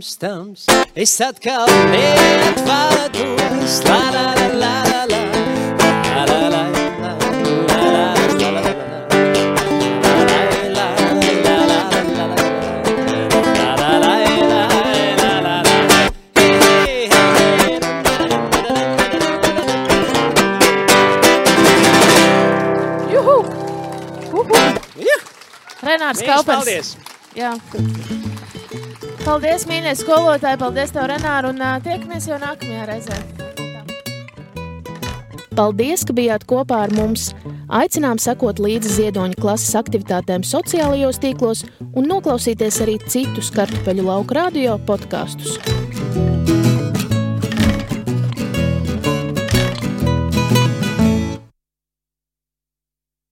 Speaker 2: Stams, es atkal neatvados, la la la la la la la la la
Speaker 1: Renārs Kaupers. Jā. Paldies, mīļie skolotāji, paldies tev, Renāru, un tiekamies jau nākamajā reizē. Paldies, ka bijāt kopā ar mums. Aicinām sekot līdzi Ziedoņa klases aktivitātēm sociālajos tīklos un noklausīties arī citus Kartupeļu lauku radio podkastus.